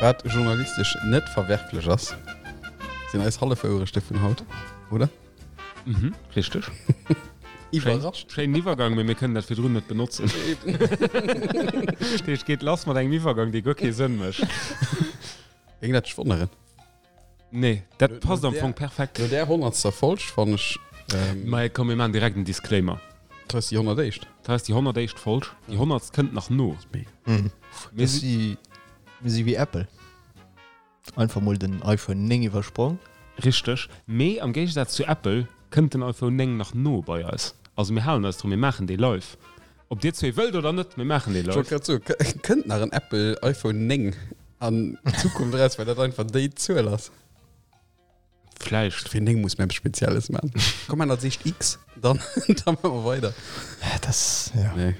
Wat journalistesch net verwerflech ass, sinn eis Hallefwouerechte vun haut, oder? Mhm, richteg. Iwwerrascht. Schéinen Iwwergang, mee mir kënnen dat virdrun net benotzen. Dat heescht, geet lass mat engem Iwwergang, dee guer kee Sënn mécht. Géing dat dech wonneren? Nee, dat passt am Fong perfekt. No där honnertster Folg fannen ech. Mä komm, mir maachen direkt en Disclaimer. Dat ass déi honnertéischt. Dat ass déi honnertéischt Folg. Déi honnertst kënnt nach no. Mir si mir si wéi Apple. Einfach mol den iPhone 9 iwwersprong. Richteg. Mee am Géigesaz zu Apple kënnt den iPhone 9 nach no bei eis. Also mir halen eis drun, mir maachen dee live. Ob dir zwee wëllt oder net, mir maachen dee live. Ech wollt grad soen, kënnt nach en Apple iPhone 9 an Zukunft eraus, well dat einfach déi Zuel ass? Vläicht. Fir 9 muss mir eppes Spezielles maachen. Komm, maan als éischt X, dann, dann maache mer weider. Dat, ja. Nee.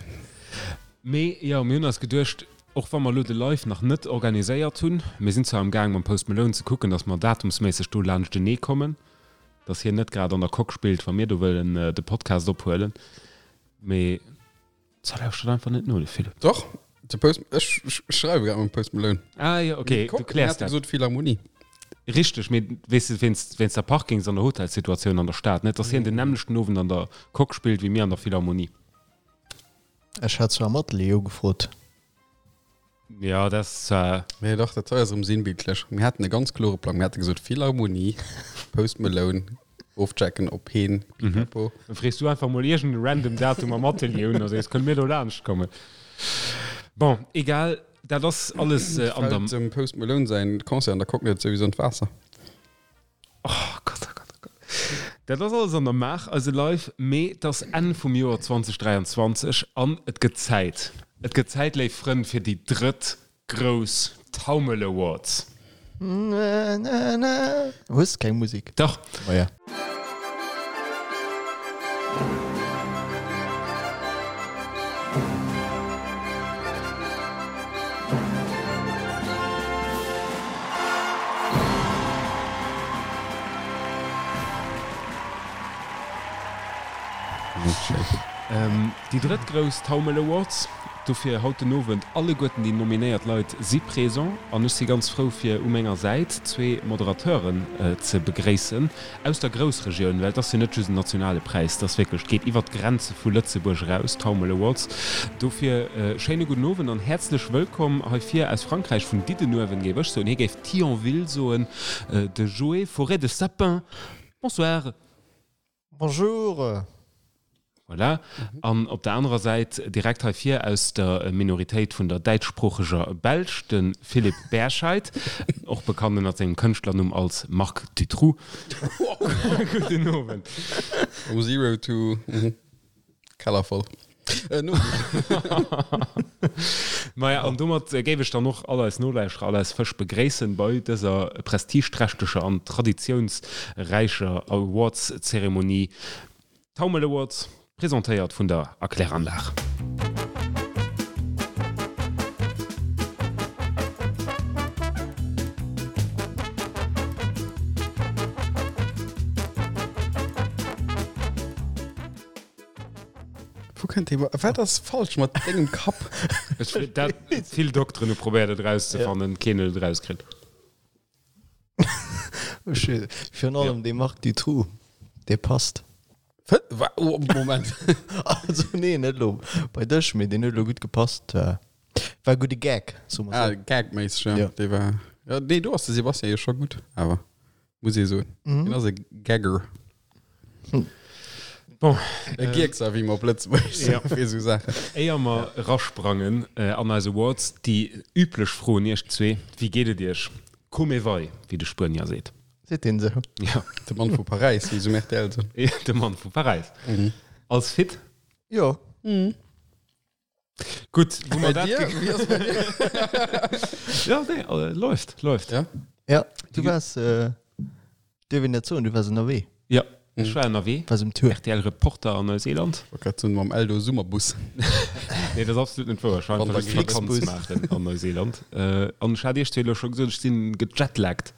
Mee jo, mir hunn eis geduecht, och wa mer elo de Live nach net organiséiert hunn, mir sinn zwar am Gaang mam Post Malone ze kucken, datt mer datumsméisseg do laanschtenee kommen, datt hien net grad an der Coque spillt, wa mir do wëllen de Podcast ophuelen, mee Ça lauschtert einfach net no, de Philippe. Doch, de Post, ech schreiwe grad mam Post Malone. Ah jo, okay, du kläers dat. Gesot Philharmonie. Richteg, mee weess de, wéinst, wéinst der Parkings an der Hotelssituatioun an der Stad, net dass hien den nämmlechten Owend an der Coque spillt wéi mir an der Philharmonie. Ech hat zwar am Atelier ugefrot. Ja, dat ass zwar. Nee, dach, dat hei ass erëm sinnbildlech. Mir haten e ganz klore Plang. Mir hate gesot, Philharmonie, Post Malone, ofchecken op heen, pipapo. Dann frees du einfach mol iergend e random Datum am Atelier un a sees, kënne mir do laanscht kommen? Bon, egal, dat ass alles an der. Fält dem Post Malone säin Concert an der Coque net souwisou an d'Waasser? Oh Gott, oh Gott, oh Gott. Dat ass alles an der Maach, eise Live, mee et ass Enn vum Joer 2023 an et gëtt Zäit. Et gëtt Zäit, léif Frënn, fir déi drëtt grouss Taumel Awards. Hues keng Musik? Dach. Oh ja. Déi drëtt grouss Taumel Awards, dofir haut den Owend alleguerten déi nominéiert Leit si présent an ech si ganz frou fir u menger Säit zwee Moderateuren ze begréissen aus der Groussregioun, well et ass jo net just en nationale Präis, et ass wierklech, et geet iwwert d'Grenze vu Lëtzebuerg eraus, d'Taumel Awards. Dofir schéine gudden Owend an häerzlech wëllkomm hei vir aus Frankräich, vun Diddenuewen géif ech soen, hie géif Thionville soen, de Joé Forêt de Sapin. Bonsoir. Bonjour! Voilà. An op der anerer Säit, direkt hei vir aus der Minoritéit vun der däitschsproocheger Belsch, de Philippe Berscheid, och bekannt ënnert sengem Kënschtlernumm als Marc Dutroux. Gudden Owend. From zero to Keller voll. Maja, an domat géif ech dann och all eis Nolauschterer, all eis Fësch begréissen bei dëser prestigeträchteger an traditiounsräicher Awards-Zeremonie. Taumel Awards, presentéiert vun der Erkläranlag. Wou kënnt dee Wat ass falsch mat dengem Kapp? Ech, dat, vill Dokteren hu probéiert et erauszefannen, keen huet et erauskritt. Virun allem dee Marc Dutroux, dee passt. Oh, Moment. Also nee, net elo bei dech, mee deen huet elo gutt gepasst. War e gudde Gag, soe mer sou. Ah, gagméisseg, ja. Dee war, ja, nee, do ass de Sebastian jo scho gutt, awer. Muss ee soen. Mhm. Hien ass e Gagger. Hm. Bon, e äh, Gierkser, wéi mer op Lëtzebuergesch ja. fir esou Saachen. Éier mer erasprangen äh, an eis Awards, déi üblech Fro un iech zwee, Wéi geet et iech? Come vai, wéi de Spuenier seet. Seet deen esou? Ja. De Mann vu Paräis, wéi se um RTL soen. De Mann vu Paräis. Mhm. Als fit? Jo. Mhm. Gutt, wou mer Bei dat dir? ge- Wéi ass bei dir? Ja, nee, äh, läuft, läuft. Ja? Ja, du waars, äh, dierf een dat soen, du waars ënnerwee, Ja, ech war ënnerwee. waars um Tour. RTL Reporter an Neuseeland. Wollt grad soen, mam Eldo Summerbus. Nee, dat ass absolut net wouer. Ech war einfach just Vakanz Flixbus. maachen an Neuseeland. Äh, an ech hat iech zwee elo scho gesot, ech sinn gejetlaggt.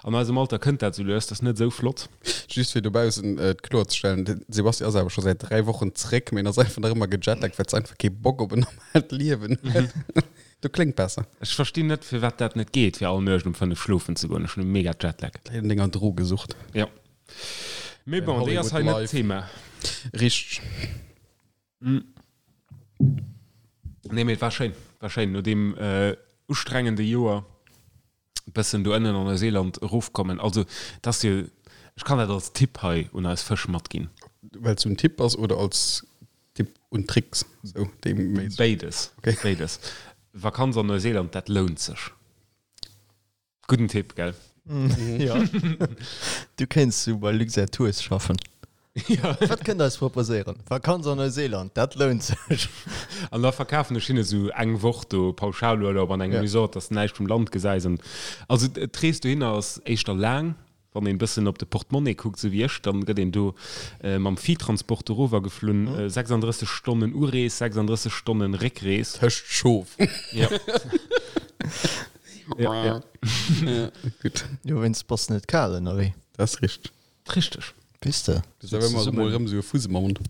An eisem Alter kënnt dat sou lues, dat ass net esou flott. Just fir dobaussen et kloerzestellen, de Sebastian ass awer scho säit 3 Wochen zréck, mee en ass einfach nach ëmmer gejetlaggt, well se einfach kee Bock op en normaalt Liewen huet. Du kléngt besser. Ech verstinn net, firwat dat net geet, fir all Nuecht um 5 schlofen ze goen. Ech hunn e mega Jetlag. Läit un denger Drogesucht. Jo. Mee bon, déi ass hei net d'Thema. Richteg. Nee, mee et war schéin. War schéin, no deem ustrengende Joer bëssen do ënnen an Neuseeland erofkommen. Also, et ass jo, ech kann dat als Tipp hei un eis Fësch matginn. Well et sou en Tipp ass oder als Tipp und Tricks? Sou dee méi. Béides. Okay. Béides. Vakanz an Neuseeland, dat lount sech. Gudden Tipp, gell? Jo. Du kéints sou bei Luxair Tours schaffen. Ja. Wat kënnt der eis proposéieren? Vakanz an Neuseeland, dat lount sech. An da verkafen ech hinne sou eng Woch do Pauschalurlaub an engem Resort, dass de näischt vum Land gesäis. An also d'Rees dohinner ass éischter laang. Wann een bëssen op de Portemonnaie kuckt, sou wéi ech, dann gëtt een do mam Viehtransport dorower geflunn. 36 Stonnen Urees, 36 Stonnen Réckrees. Tëscht Schof. Ja. Ja, ja. Ja, gutt. Jo, wéinst bass net kal ënnerwee. Dat ass richteg. Richteg. Weess de. Du hues awer ëmmer emol erëm esou e Fuss am Mond.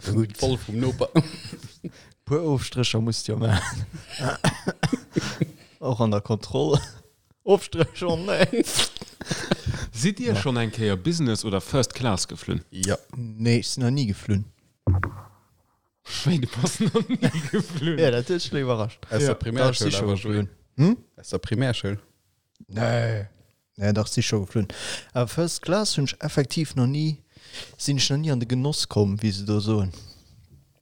Gutt. Voll vum Noper. Puer Ofstrécher muss de jo maachen. Och an der Kontroll. Ofstréch, oh nee. Sidd Dir schonn eng Kéier Business oder First Class geflunn? Jo. Nee, ech sinn nach ni geflunn. Wéi, du bass nach ni geflunn? Jo, dat huet mech elo iwwerrascht. Aus der Primärschoul awer, Joé. Hm? Aus der Primärschoul. Nee. Nee, dach, si scho geflunn. Awer First Class hunn ech effektiv nach ni, sinn ech nach ni an de Genoss komm, wéi se do soen.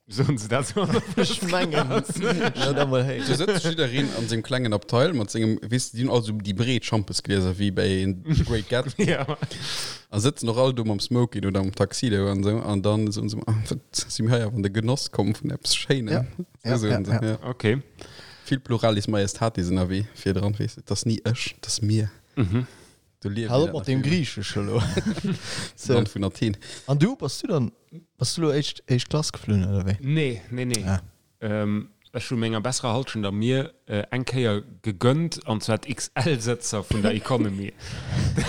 Soen se dat sou an der First Ech mengen, ech hunn dat mol Do héieren. sëtzt jiddereen an sengem klengen Abteil mat sengem, weess de, déi hunn all sou déi breet Schampesglieser wéi bei The Great Gatsby. Ja. A sëtzen och all do mam Smoking oder mam Tuxedo an sou. An dann soen se, ah, wat si mir hei awer an de Genoss komm vun eppes Schéinem. Ja, ja, Sou soen ja, se, ja. ja. Okay. Vill Pluralis Majestatis ënnerwee virdran, weess de, 't ass ni ech, 't ass mir. Do liewe Hal mir op dat mat nach deem vill méi. Griichesch elo. Am Land vun Athen. An du, bass du dann, bass du elo éischt, éischt Klass geflunn, oder wéi? Nee, nee, nee. Ah. Ech hu menger besserer Halschent a mir eng Kéier gegönnt, an zwar d'XL-Sëtzer vun der Economy.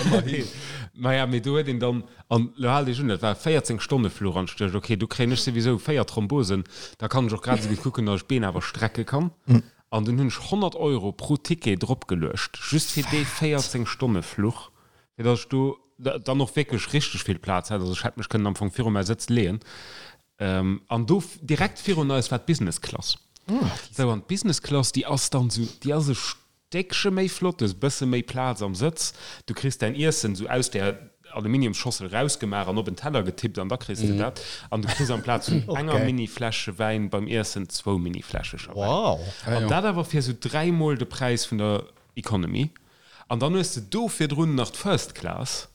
Ëmmerhin. Maja, mee do huet een dann, an elo haalt iech un, dat war e 14 Stonne-Fluch, an ech duecht, okay, do kréien ech souwisou 4 Thrombosen, da kann ech och grad esou gutt kucken, datt ech d'Been awer strecke kann. An dunn hunn ech 100 Euro pro Ticket dropgeluecht, just fir dee 14 Stonne-Fluch, fir datt ech do dann och wierklech richteg vill Plaz hat. Also ech hätt mech kënnen am Fong viru mäi Sëtz leeën. An do direkt virun eis war d'Business Class. Sou, an d'Business Class, déi ass dann esou, déi ass e Stéckche méi flott, du hues e bësse méi Plaz am Sëtz, du kriss däin Iessen esou aus där Aluminiumsschossel rausgemaach an op en Teller getippt an da kriss de dat. An du kriss amplaz vun enger Mini-Fläschche Wäin beim Iessen zwou Mini-Fläschecher Wäin. Wow! An dat awer fir esou dräimol de Präis vun der Economy. An dann hues de do virdrun nach d'First Class.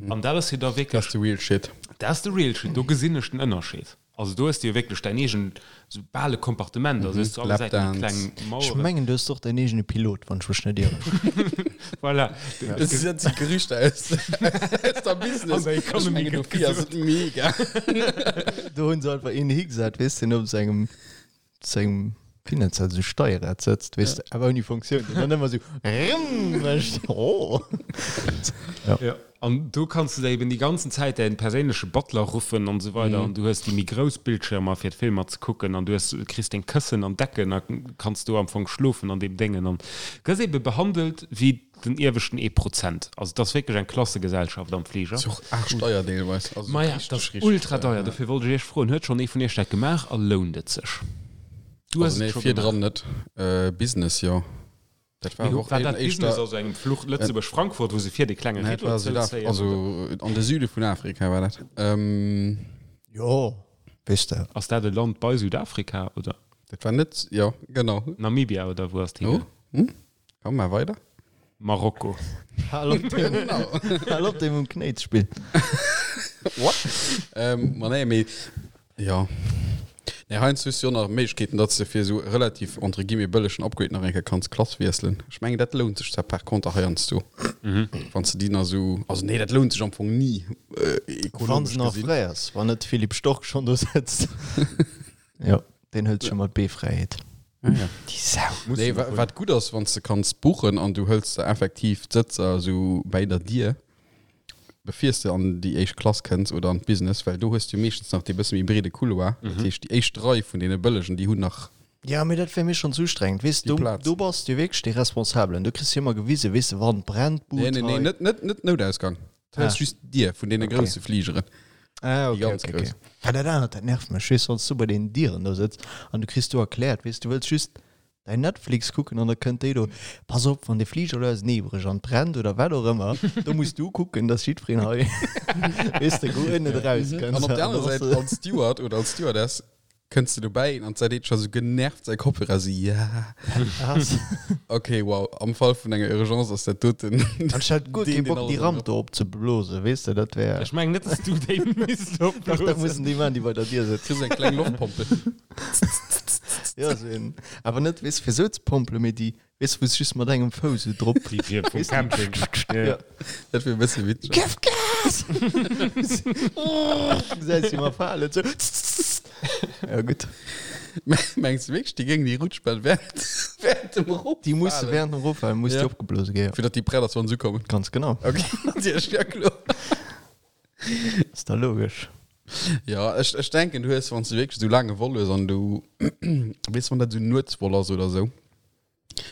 An dat ass jo da wierklech. Dat ass de real shit. Dat ass de real shit. Do gesinn ech den Ënnerscheed. Also do hues de jo wierklech däin eegen, sou bal e Kompartement. Also hues zu alle Säiten déi kleng Maueren. Ech mengen, du hues och däin eegene Pilot, wann ech mech net ieren. Voilà. Dat si Gerüchter aus der Business. An der Economy gëtt gesot. Dofir ass et mega. Do hunn se einfach een higesat, weess, deen op sengem sengem, wéi nennt se dat, esou Steierrad sëtzt, weess de, awer ouni Funktioun, deen dann ëmmer esou rrrm mécht. Oh! Ja. Ja, an do kanns de der eben déi ganzen Zäit däin perséinleche Butler ruffen an esou weider an du hues déi méi grouss Bildschirmer fir d'Filmer ze kucken an du hues, kriss deng Këssen an Decken a kanns do am Fong schlofen an deem Déngen an gëss ebe behandelt wéi den ieweschten ee Prozent. Also et ass wierklech eng Klassegesellschaft am Fliger. Ass jo och aarschdeier deelweis. Also Maja, et ass ultra deier. Dofir wollt ech iech froen, huet schonn ee vun iech dat gemaach a lount et sech? Du hues Also et nee, scho virdran gemaach. net. Business, jo. Dat war Mee awer och war dat éischter. Business, also engem Fluch Lëtzebuerg-Frankfurt, wou se vir dee klenge Nee, dat Rideau war Südaf-, zouzéien, also oder? an de Süde vun Afrika war dat. Jo, weess de. Ass dat e Land bei Südafrika, oder? Dat war net, jo, genau. Namibia, oder wou ass Oh, d'higaang? hm? Komm, mar weider. Marokko. Hal op dem, hal op dem um Knéi ze spillen. What? Ähm, ma nee, mee jo. Nee, heiansdo hues du jo nach Méiglechkeeten, datt s de fir esou relativ entre guillemets bëllegen Upgrade nach eng Kéier kanns Klass wiesselen. Ech mengen, dat lount sech zwar par contre heiansdo, wann s de déi nach esou, also nee, dat lount sech am Fong ni, Wann se ekonomesch nach gesinn. fräi ass, wann net Philippe Stork schonn do sëtzt. Jo, deen hëlt sech ëmmer d'B-Fräiheet. Ah, ja. Déi Sau. Muss Nee, en wa och hunn. wat gutt ass, wann s de kanns buchen an du hëls der effektiv d'Sëtzer esou bäi der Dier, bevir s de an déi éischt Klass kënns oder an d'Business, well do hues du meeschtens nach dee bësse méi breede Couloir. Dat heescht, déi éischt Rei vun deene Bëllegen, déi hunn nach. Ja, mee dat wär mir schonn ze ustrengend, weess Déi du, Plaz. do bass du wierklech dee Responsabelen, do kriss du ëmmer gewisen, weess de, wann brennt d'Bud Nee, nee, nee, hei. net, net, net Noutausgang. Dat Ah. ass just d'Dier vun deene Okay. grousse Fligeren. Ah, Déi okay, ganz okay, grouss. okay. Well dat anert, dat nervt mech, weess du, wann s du bei deenen Dieren do sëtz an du kriss do erkläert, weess du, wëlls just däin Netflix kucken an da kënnt déi do, pass op, wann de Fliger elo auseneebrécht an brennt oder wat och ëmmer, do muss du kucken, dass jiddwereen hei, weess de, guer net erauskënnt. An op der anerer Säit, als Steward oder als Stewardess, Kënns de dobäi an d'Säit scho sou genervt säi Kopfhörer sou ja. Okay, wow, am Fall vun enger Urgence ass dat doten. An ech hätt guer deen, kee deen Bock alles déi Ramp do opzeblosen, weess de, dat wär. Ech mengen net, dass du déi misst Dach, dat opblosen. mussen déi man, déi bei der Dier sëtzen. Kriss eng kleng Loftpompel. Ja, sou een, awer net, weess, fir sou ze pompelen, mee déi Weess wou s just mat engem Fouss esou drop. Déi fir vum Camping. Ja. Dat wier e bësse witzeg. Gëff Gas! Gesäis si mar falen sou. Ja gutt. Mengs de wierklech, déi géingen déi Rutschbahn während, während dem Eroffalen? Déi musse während dem Eroffalen muss déi Ja. opgeblose ginn, ja. Fir datt déi prett ass, wann se ukommen. Ganz genau. Okay, natierlech, ja kloer. Ass da logesch. Ja, ech, ech denken, du hues, wann s du wierklech esou laang e Vol hues an du, weess, wann dat esou Nuetsvol ass oder esou,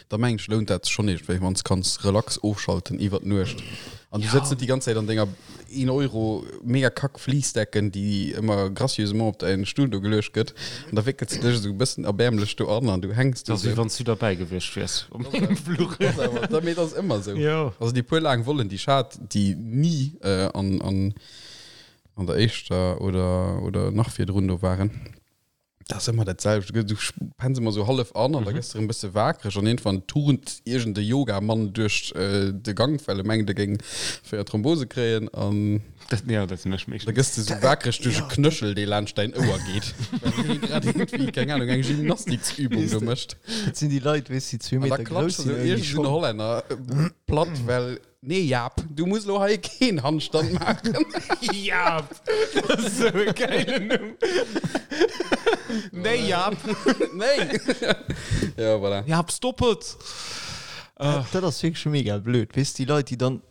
Da mengen ech lount dat sech schonn iergendwéi, wann s kanns relax ofschalten iwwer d'Nuecht an du sëtz net déi ganz Zäit an denger 1 Euro mega kack Fleecedecken, déi ëmmer gracieusement op däin Stull do geluecht gëtt an da wéckels de dech esou e bëssen erbäermlech do an an du hänks do Dat ass wéi esou. wann s du derbäi gewiescht wiers op mengem Fluch. Dat ass awer, da, mee dat ass ëmmer esou. Jo. Also déi puer laang Vollen, déi ech hat, déi ni an, an, an der éischter oder, oder nach virdrun do waren, Dat ass ëmmer dat selwecht. Du gëss- du penns ëmmer sou hallef an an da gëss de erëm e bësse wakereg an iergendwann turnt iergend e Yoga-Mann duerch de Gank, well e mengt, e géing 4 Thrombose kréien an Dat, ja, dat sinn ech da meeschtens. gëss de sou wakereg duerch e Knöchel, dee laanscht däin Ouer geet, well hie grad iergendwéi, keng Ahnung, eng Gymnastiksübung do mécht. Dat sinn déi Leit, weess, déi zwee An da Meter grouss klatscht sinn esou ouni iergend esou en Schong. Hollänner platt, well Nee Jaap, du muss lo hei keen Handstand maachen. Jaap! Dat ass sou e gäilen Numm. Nee Jaap! Nee! Ja, voilà. Jaap, stop et! Dat ass wierklech mega blöd, weess, déi Leit, déi dann,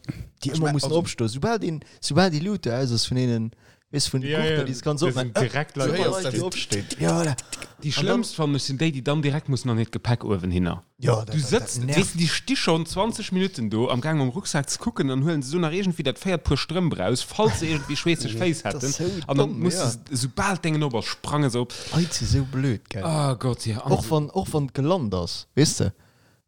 déi ëmmer mussen opstoen, soubal deen, soubal déi Luut do aus ass vun deenen, Weess vun de Ja, Gurten, ja, déi se ganz das opmachen. sind direkt Leit, Super die Leit, déi opstehen. opstehen. Ja, voilà. Déi schlëmmst fannen ech sinn déi, déi dann direkt mussen an hiert Gepäck uewen hinner. Ja, dat, Du dat, sëtzt, dat weess nervt. de, déi sti schonn 20 Minutten do am Gaang mam Rucksak ze kucken, dann huelen se do nach iergendwéi dat véiert Puer Strëmp raus, falls se iergendwéi schweesseg Féiss Dat hätten, ass sou an dann domm, muss ja. se, soubal d'Déngen op ass, sprange se op. Leit si sou blöd, gell. Oh Gott, ja. An Och wann, och wann et gelant ass, weess de.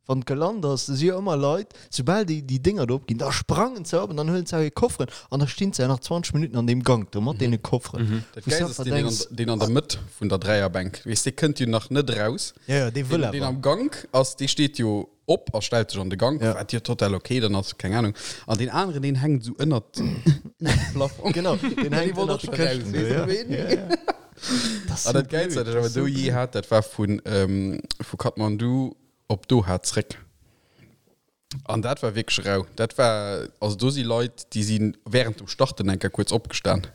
Wann et gelant ass, da si jo ëmmer Leit, soubal déi déi Dénger do opginn, da sprangen se op an dann huelen se auch hir Kofferen an da stinn se ja nach 20 Minutten an deem Gank do mat deene Kofferen. Dat Wou s du Gäilst ass einfach deen, deen an, denks, deen an der Mëtt vun der Dräierbänk, weess, dee kënnt jo nach net raus. Ja, ja, dee wëll Deen, deen awer. am Gank ass, dee steet jo op a stellt sech an de Gank, Ja. wat jo total okay dann ass, keng Ahnung. An deen aneren, deen hänkt esou ënnert dem Plafond. Genau, deen Dee hänkt wollt ënnert och de scho raus, Këschten do, weess du, ja. ween? Ja, ja. Das An sou dat Gäilst, blöd, wat ech awer das sou do jee blöd. hat, dat war vun, ähm, vu Kathmandu op Doha zréck. An dat war wierklech rau. Dat war, also do si Leit, déi si während dem Starten eng Kéier kuerz opgestan.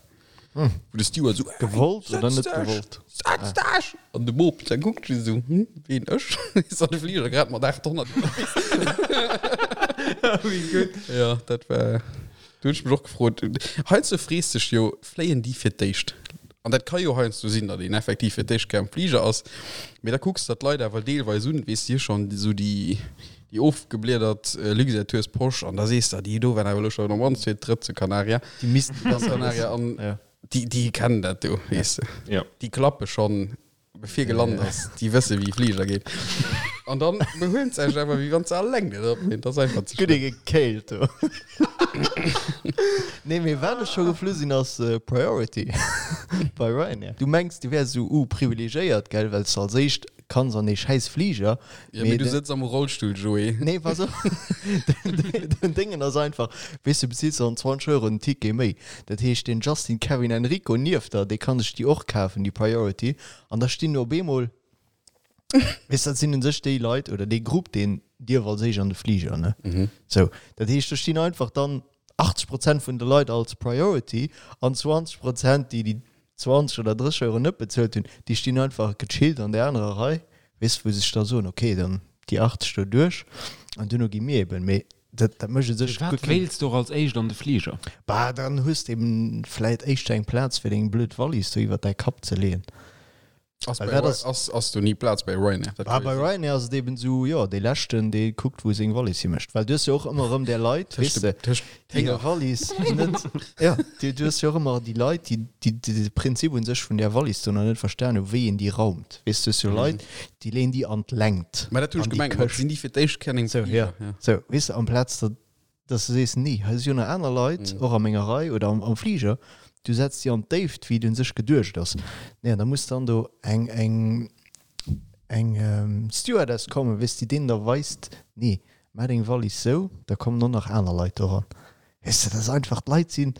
Wou de Steward esou, Gewollt oder Setz net dech! gewollt? Setz dech! An de Bop, der kuckt just esou, hm, ween, ech? Is an de Fliger grad mat 800 ënnerwees. Wéi gutt. Ja, dat war, do hunn ech mech och gefrot, heiansdo frees dech jo, fléien déi fir d'éischt? An dat ka jo heiansdo sinn, datt een effektiv fir d'éischt Kéier am Fliger ass, mee da kucks de der d'Leit awer deelweis un, weess de, schonn esou déi déi ofgebliedert Luxair Tours Posch an da sees de, déi do waren awer elo schonn am mannst fir d'drëtt zu Canaria, Déi missten Gran Canaria an déi déi kennen dat do, weess de, déi klappe schonn bevir gelant ass, déi wësse wéi Fliger geet. An dann behuelen se sech awer wéi wann se alleng net op sinn. Dat ass einfach ze Gutt schlëmm. ee gekéilt do. Nee, mee wat ech scho geflu sinn ass Priority bei Ryanair. Du mengs du wäers esou uh privilegéiert, gell, well s de als éischt kanns an dee schäiss Fliger. Ja, mee du sëtz am Rollstull, Joé. Nee, pass op, den Déngen ass einfach, weess du, bezills dann 20 Euro den Ticket méi. Dat heescht, den Justin Kevin Enrico nieft der, dee kann sech déi och kafen, déi Priority. An da stinn op eemol, weess, dat sinn un sech déi Leit oder dee Grupp, deen dierf als éischt an de Fliger, ne? Sou, dat heescht, do stinn einfach dann 80 Prozent vun de Leit als Priority an 20 Prozent, déi déi 20 oder 30 Euro net bezuelt hunn, déi stinn einfach gechillt an där anerer Rei, weess, wou se sech da soen, okay, dann déi 80 do duerch an duerno gi mir eben. Mee dat, dat mécht u sech guer Firwat keng. wéilts de och als éischt an de Fliger? Bah, dann hues de eben vläit éischter eng Plaz fir deng blöd Wallis do iwwert däi Kapp ze leeën. Ass Well bei dat Ry- ass- ass, ass do ni Plaz bei Ryanair? Dat Ah, ka bei jo sinn. Ryanair ass et eben esou, jo, dee leschten, dee kuckt, wou seng Wallis himécht. Well du hues jo och ëmmer erëm där Leit, Tëscht weess de, de, tëscht déi hir Hénger. Wallis net, ja, du, du hues jo och ëmmer déi Leit, déi, déi, déi de Prinzip un sech vun där Wallis do nach net verstan hu, wéi een déi raumt. Weess du, hues jo Leit, déi leeën déi an d'Längt, Mä dat hunn an ech déi gemengt, mat Këscht. sinn déi fir d'éischt Kéier an engem Sou, ja. Fliger, ja. Sou, weess de, amplaz datt dass du sees, nee, hei si jo nach aner Leit, och a menger Rei oder am, am Fliger, du setz déi an d'Déift, wéi et un sech geduecht ass. Nee, an da muss dann do eng, eng, eng Stewardess kommen, weess, déi deenen da weist, nee, maach deng Wallis sou, da kommen och nach aner Leit doran. Weess de, dat ass einfach, d'Leit sinn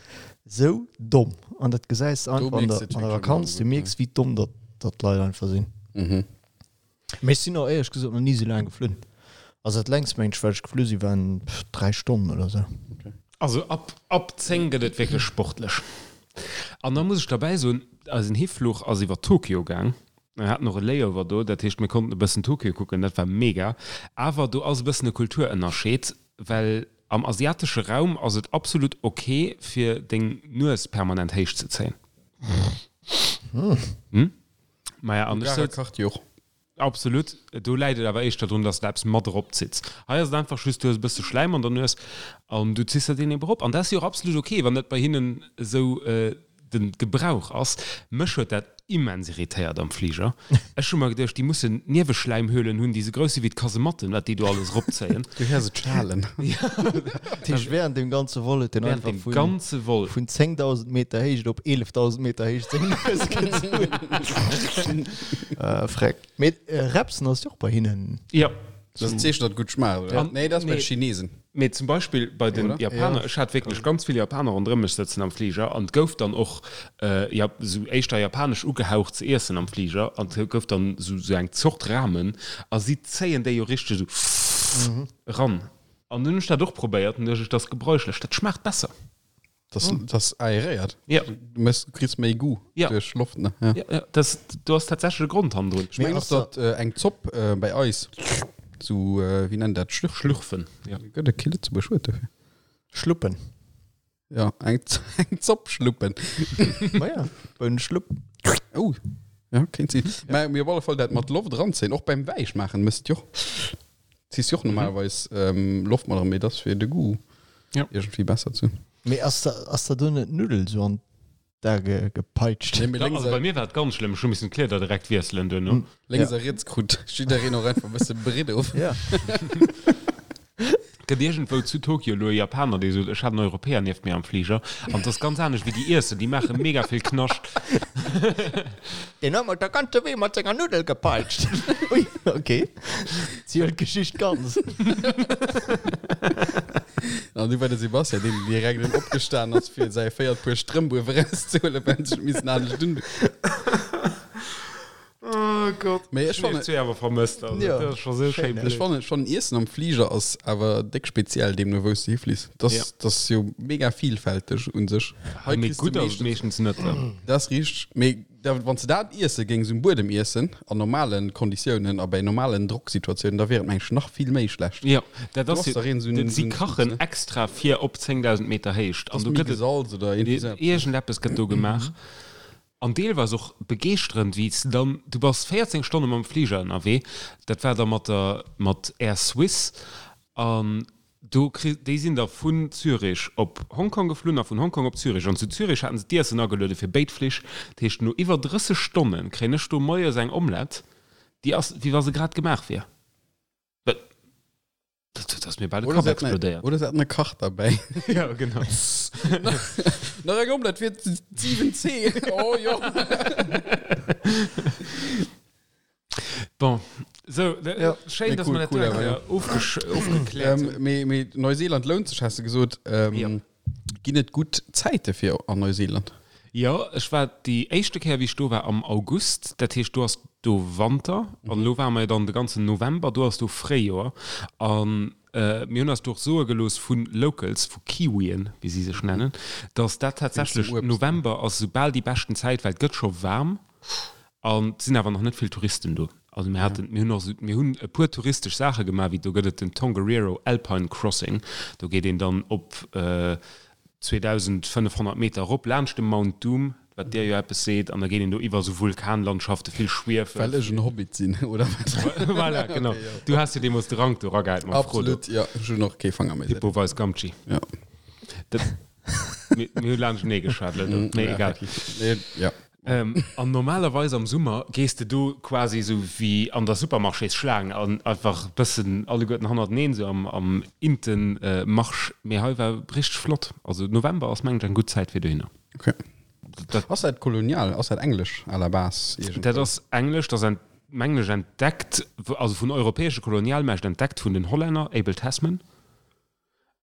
sou domm an dat gesäis de Do einfach an mierks der, de et an der wierklech Vakanz, du ëmmer, mierks, wéi domm datt, datt d'Leit einfach sinn. Mhm. Mee ech sinn och éierlech gesot nach ni sou laang geflunn. Also dat längst mengen ech wat ech geflu sinn waren 3 Stonnen oder sou. Also ab ab 10 gëtt et wierklech sportlech. An da muss ech derbäi soen, eisen Hifluch ass iwwer Tokio gaang. Mir haten och e Layover do, dat heescht mir konnten e bëssen Tokio kucken, dat war mega. Awer do ass e bëssen e Kulturënnerscheed, well am asiatesche Raum ass et absolut ok fir deng Nues permanent héich ze zéien. Hm? Maja, an ech souz. Kacht jo och. Absolut. Do läit et awer éischter drun, dass de eppes mat eropzitts. Hei ass et einfach just, du hues e bësse Schläim an der Nues an du ziss der deen ebe erop. An dat ass jo och absolut ok, wann dat bei hinnen esou de Gebrauch ass. Mech huet dat immens irritéiert am Fliger. Ech hu mer geduecht, déi mussen Nieweschläimhöhlen hunn, déi esou grouss si wéi d'Kasematten, wat déi do alles eropzéien. Du héiers et schalen. Dat heescht, während dem ganze Vol huet en Während einfach dem vun, ganze Vol. vun 10.000 Meter Héicht op 11.000 Meter Héicht seng Nues gezunn. Äh, Freck. Mee Repsen ass jo och bei hinnen. Jo. Dat ass en Zeechen, datt et gutt schmaacht, oder? An- Nee, dat ass bei nee. de Chinesen. Mee zum Beispill bei den Oder? Japaner, Ja. ech hat wierklech ganz vill Japaner ronderëm mech sëtzen am Fliger an et gouf dann och ja, sou éischter japanesch ugehaucht ze iessen am Fliger an et gouf dann sou sou eng Zort Ramen a si zéien déi jo richteg sou eran. An dunn hunn ech dat och probéiert an duecht ech, dat ass gebräuchlech, dat schmaacht besser. Das, das aeréiert. Ja. Du mëss, du kriss méi Goût Ja. duerch Loft, ne? Ja. Ja, ja, das, do ass tatsächlech e Grond hannendrun. Ech mengen och, datt äh, eng Zopp äh, bei eis sou, äh, wéi nennt dat, Schlürfen? Schlürfen, ja. Gëtt et kee Lëtzebuerg Wuert dofir? Schluppen. Ja, eng, eng Zopp schluppen. Ma ja, Bounenschlupp. Oh, ja, kéint sinn. Mä mir op alle Fall dat mat Loft eranzéien, och beim Wäisch maachen, mëss et jo och. Ziss jo och normalerweis ähm, Loft mat eran, mee dat ass fir de Goût Ja. iergendwéi besser ze hunn. Mee ass da, ass da do net d'Nuddel sou an d'A ge, gepeitscht? Nee, mee Ja, lénks also a, bei mir war et ganz schlëmm, ech hu missen d'Kleeder direkt wiesselen duerno. lénks a riets krut jiddereen och einfach e bësse Britt of. Ja. Gëtt iergendwou zu Tokio elo e Japaner, dee sot, ech hat en Europäer nieft mir am Fliger an et ass ganz anescht wéi déi iessen, déi maache mega vill Knascht. Deen huet mer de ganze Wee mat senger Nuddel gepeitscht. Ui, ok. Ziel d'Geschicht ganz. An du war de Sebastian, deen direkt erëm opgestan ass, fir säi véiert Puer Strëmp uewe erauszehuelen, well en sech missen anescht un. Oh Gott. Mee ech fannen fannen, awer vermësst also, Ja. dat ass scho sou schéin ech blöd. fannen schon Iessen am Fliger ass awer déck speziell deemno wou s de hifliss. Das, Ja. das ass jo mega vielfälteg un sech. Hei Mee kriss du gutt ass et meeschtens, meeschtens net. Ne? dat ass richteg, mee da wann s de dat iesse géings um Buedem iessen, an normalen Konditiounen a bei normalen Drocksituatiounen, da wier et meng ech nach vill méi schlecht. Ja, dat Du ass ass jo, dach een sou den, en si sou en kachen Zutz, ne? extra fir op 10.000 Meter Héicht an Ass do méi gëtt et gesalz oder iergendwéi sou eppes, ne? iergendeppes gëtt do gemaach. An deelweis och begeeschterend, wéi s de dann, du bass 14 Stonne mam Fliger ënnerwee, dat war da mat der, mat Air Suisse, an do kri, déi sinn da vun Zürich op Hongkong geflunn a vun Hongkong op Zürich. An zu Zürich haten se d'Iessen ageluede fir béid Flich. Dat heescht, no iwwer 30 Stonne kréien ech do moies eng Omelette, déi ass, wéi wa se grad gemaach wier. Dat ass mir bal de Oder Kapp se haten explodéiert. oder se haten e Kach derbäi. Ja, genau. Nach eng Omelette fir d'7C. Oh jo. Bon, so, Ja. schéin, Nee, dass cool, mer dat cool, eng awer, Kéier ja. ofgesch ofgekläert Ähm, hunn. mee, mee Neuseeland lount sech, has de gesot. Ähm, Ja. Ginn et gutt Zäite fir an Neuseeland? Jo, ech war déi éischte Kéier, wéi ech do war, am August. Dat heescht, do ass do Wanter. An elo ware mer jo dann de ganzen November, do ass do Fréijoer. An mir hunn eis do och soe gelooss vu Locals, vu Kiwien, wéi si sech nennen, dass dat tatsächlech November ass esou bal déi beschten Zäit, well et gëtt scho waarm an et sinn awer nach net vill Touristen do. Also mir haten, mir hunn och esou, mir hunn e puer touristesch Saache gemaach, wéi do gëtt et den Tongariro Alpine Crossing, do geet een dann op 2.500 Meter erop laanscht de Mount Doom. Wat dir jo eppes seet, an da geet een do iwwer esou Vulkanlandschaften, vill Schwiefel. Well ech en Hobbit sinn, oder wat? Voilà, genau. Okay, jo. Du has jo deemools de Rank do eragehäit mam Frodo. Absolut, jo. Ech hunn och kee Fanger méi. Pippo weist Gamtschi. Jo. Dat, mir, mir hu laanschtenee geschwat elo do, mee Ja, egal. effektiv. Nee, ja. Ähm, an normalerweis am Summer gees de do quasi esou wéi an der Supermarchésschlaang an einfach bëssen alleguerten hannerteneen, esou am, am Inten Marsch. Mee hei war richteg flott. Also November ass mengen ech eng gutt Zäit fir dohinner. Okay. Dat, ass dat kolonial? Ass dat englesch à la base? Dat ass englesch, dat ass mengen ech entdeckt, also vun europäesche Kolonialmächt entdeckt vun den Hollänner, Abel Tasman.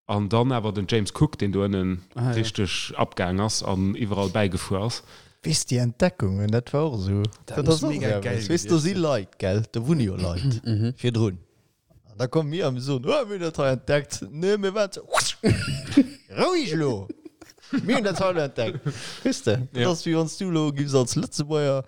An dann awer den James Cook, deen do ënnen ah, richteg ja. abgaang ass an iwwerall bäigefuer ass. Weess déi Entdeckungen, dat war och esou. Dat, dat ass och mega geil. Weess do si Leit, gell, do wunne jo Leit mhm. virdrun. An da komme mir a mir soen, oh, mir hunn dat hei entdeckt. Nee, mir waren ze. Roueg elo! Mir hunn dat hei elo entdeckt. Weess de, dat ass wéi wann s du elo giffs als Lëtzebuerger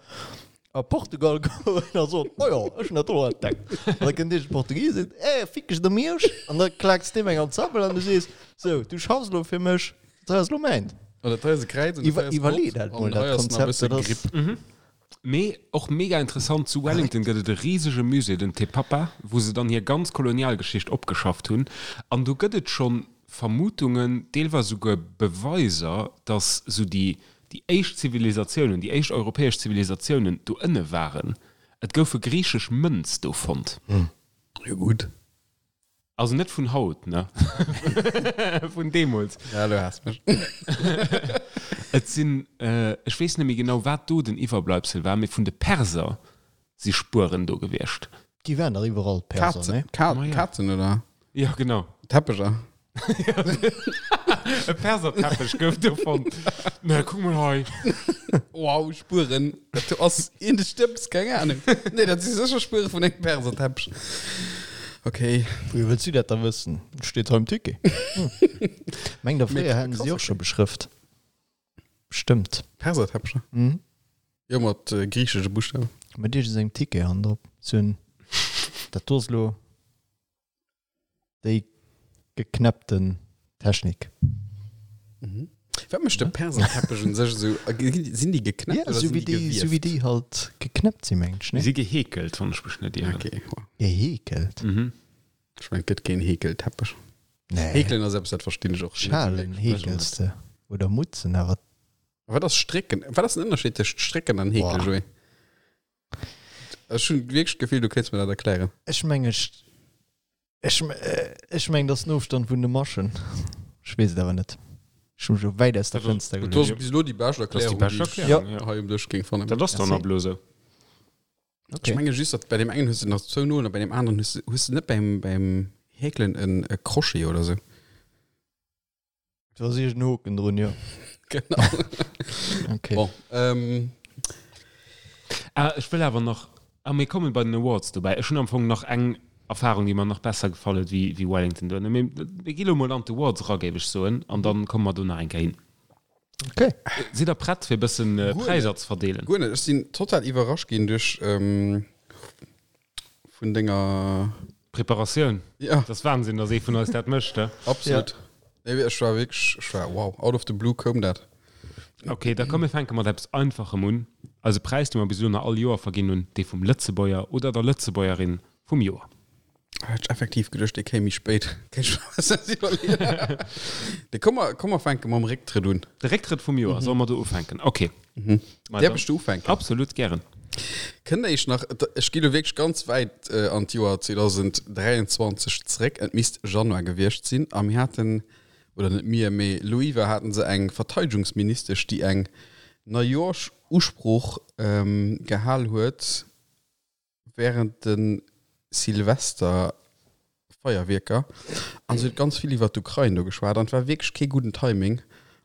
a Portugal goen a soen, oh jo, ech hunn dat do entdeckt. An da kënnt iergend Portugis a seet, eh, fick dech der Miersch. An da klaaks deem eng an d'Sabbel an du sees, sou, du schaffs elo fir mech, dat hei ass elo mäint. An dat hei ass e Kräiz an dat hei ass Gott. Iwwerlee dat mol, An dat hei ass nach e Konzept, bësse dat ass. Gripp. Mee och mega interessant, zu Wellington gëtt et e risege Musée, den Te Papa, wou se dann hir ganz Kolonialgeschicht opgeschafft hunn. An do gëtt et scho Vermutungen, deelweis esouguer Beweiser, datt esou déi déi éischt Zivilisatiounen, déi éischt europäesch Zivilisatiounen do ënne waren. Et goufe griichesch Mënz do fonnt. Jo gutt. Also net vun haut, ne? Vun deemools. Ja, elo has mech. Et sinn, ech weess net méi genau, wat do den Iwwerbleibsel war, mee vun de Perser si Spueren do gewiescht. Déi waren dach iwwerall, d'Perser, ne? Kazen, Kazen, oder? Ja, genau. Teppecher. E Perserteppech gouf do fonnt. Na, kuck mol hei. Wow, Spueren. Dat do ass een de Stëbs, keng Ahnung. Nee, dat si sécher Spuere vun engem Perserteppech. Okay. Wéi wëlls du dat da wëssen? Steet hei um Ticket. Meng der fréier hätten se déi och scho beschrëft. Bestëmmt. Perserteppecher? Mhm. Jo, mat äh, griichesche Buschtawen. Mat iergendengem Ticket han drop. Sou en, dat do ass lo. Déi geknäppten Technik. Mhm. Wat mécht de Perserteppech un sech esou? Sinn déi geknäppt Ja, oder sou sinn wéi déi déi, sou wéi gewieft? déi halt geknäppt sinn, mengen ech, Déi ne? si geheekelt, wann ech mech net ieren. Okay, wow. Geheekelt? Mhm. Ech mengen, et gëtt keen Heekelteppech. Nee. Heekelen ass eppes, dat verstinn ech och net Schalen wierklech. heekels de oder Mutzen, awer. Wat ass Strécken? Wat ass den Ënnerscheed tëscht Strécken an Heekelen, Boah. Joé? Ech hunn wierklech d'Gefill, du kéints mir dat erklären. Ech mengen, ech, ech, ech mengen, dat ass den Ofstand vun de Maschen. Ech weess et awer net. Ech hu mech elo wäit aus der Fënster Dat geluecht. ass bis elo déi bescht Dat ass déi Erklärung, bescht déi ech Erklärung, ja. hei um Dësch géing fannen. Dat ass dann Merci. ab elo esou. Okay. Ech menge just, datt bei deem engen hues de nach zwou Nolen a bei deem aneren hues de, hues de net beim, beim Häkelen en e Crochet oder sou. Do ass iergend en Hoken drun, jo. Genau. Okay. Bon, ähm, Ah, ech wëll awer nach, ah, mir kommen bei den Awards dobäi. Ech hunn am Fong nach eng Erfahrung, déi mer nach besser gefall huet wéi, wéi Wellington do. Mee mir gi lo mol an d'Awards era, géif ech soen, an dann komme mer do nach eng Kéier hin. Okay. Sidd der prett, fir e bëssen Guer net. Präisser ze verdeelen? Guer net. Ech sinn total iwwerrascht ginn duerch, ähm, vun denger Preparatioun. Ja. Dat ass Wahnsinn, dass ee vun eis dat mécht, he? Absolut. Ja. Nee, ech war wierklech, ech war wow, out of the blue koum dat. Okay, da komm mir fänke mat eppes Einfachem un. Eise Präis, dee mer bis elo nach all Joer verginn hunn, dee vum Lëtzebuerger oder der Lëtzebuergerin vum Joer. Hat ech effektiv geduecht, dee kéim méi spéit. Kéint ech mer eppes iwwerleeën. De komm mer, komm mer fänke mam Récktrëtt un. De Récktrëtt vum Joer, solle mer do ufänken? Okay. Mhm. Ma Däerf dann- ech do ufänken? Absolut, gären. Kënnt der iech nach, ech gi lo wierklech ganz wäit an d'Joer 2023 zréck, et misst Januar gewiescht sinn, a mir haten, oder net mir, mee Loiwa haten se eng Verteidegungsministesch, déi eng Neijooschusprooch gehal huet, während de Silvesterfeierwierker an se huet ganz vill iwwer d'Ukrain do geschwat an et war wierklech kee gudden Timing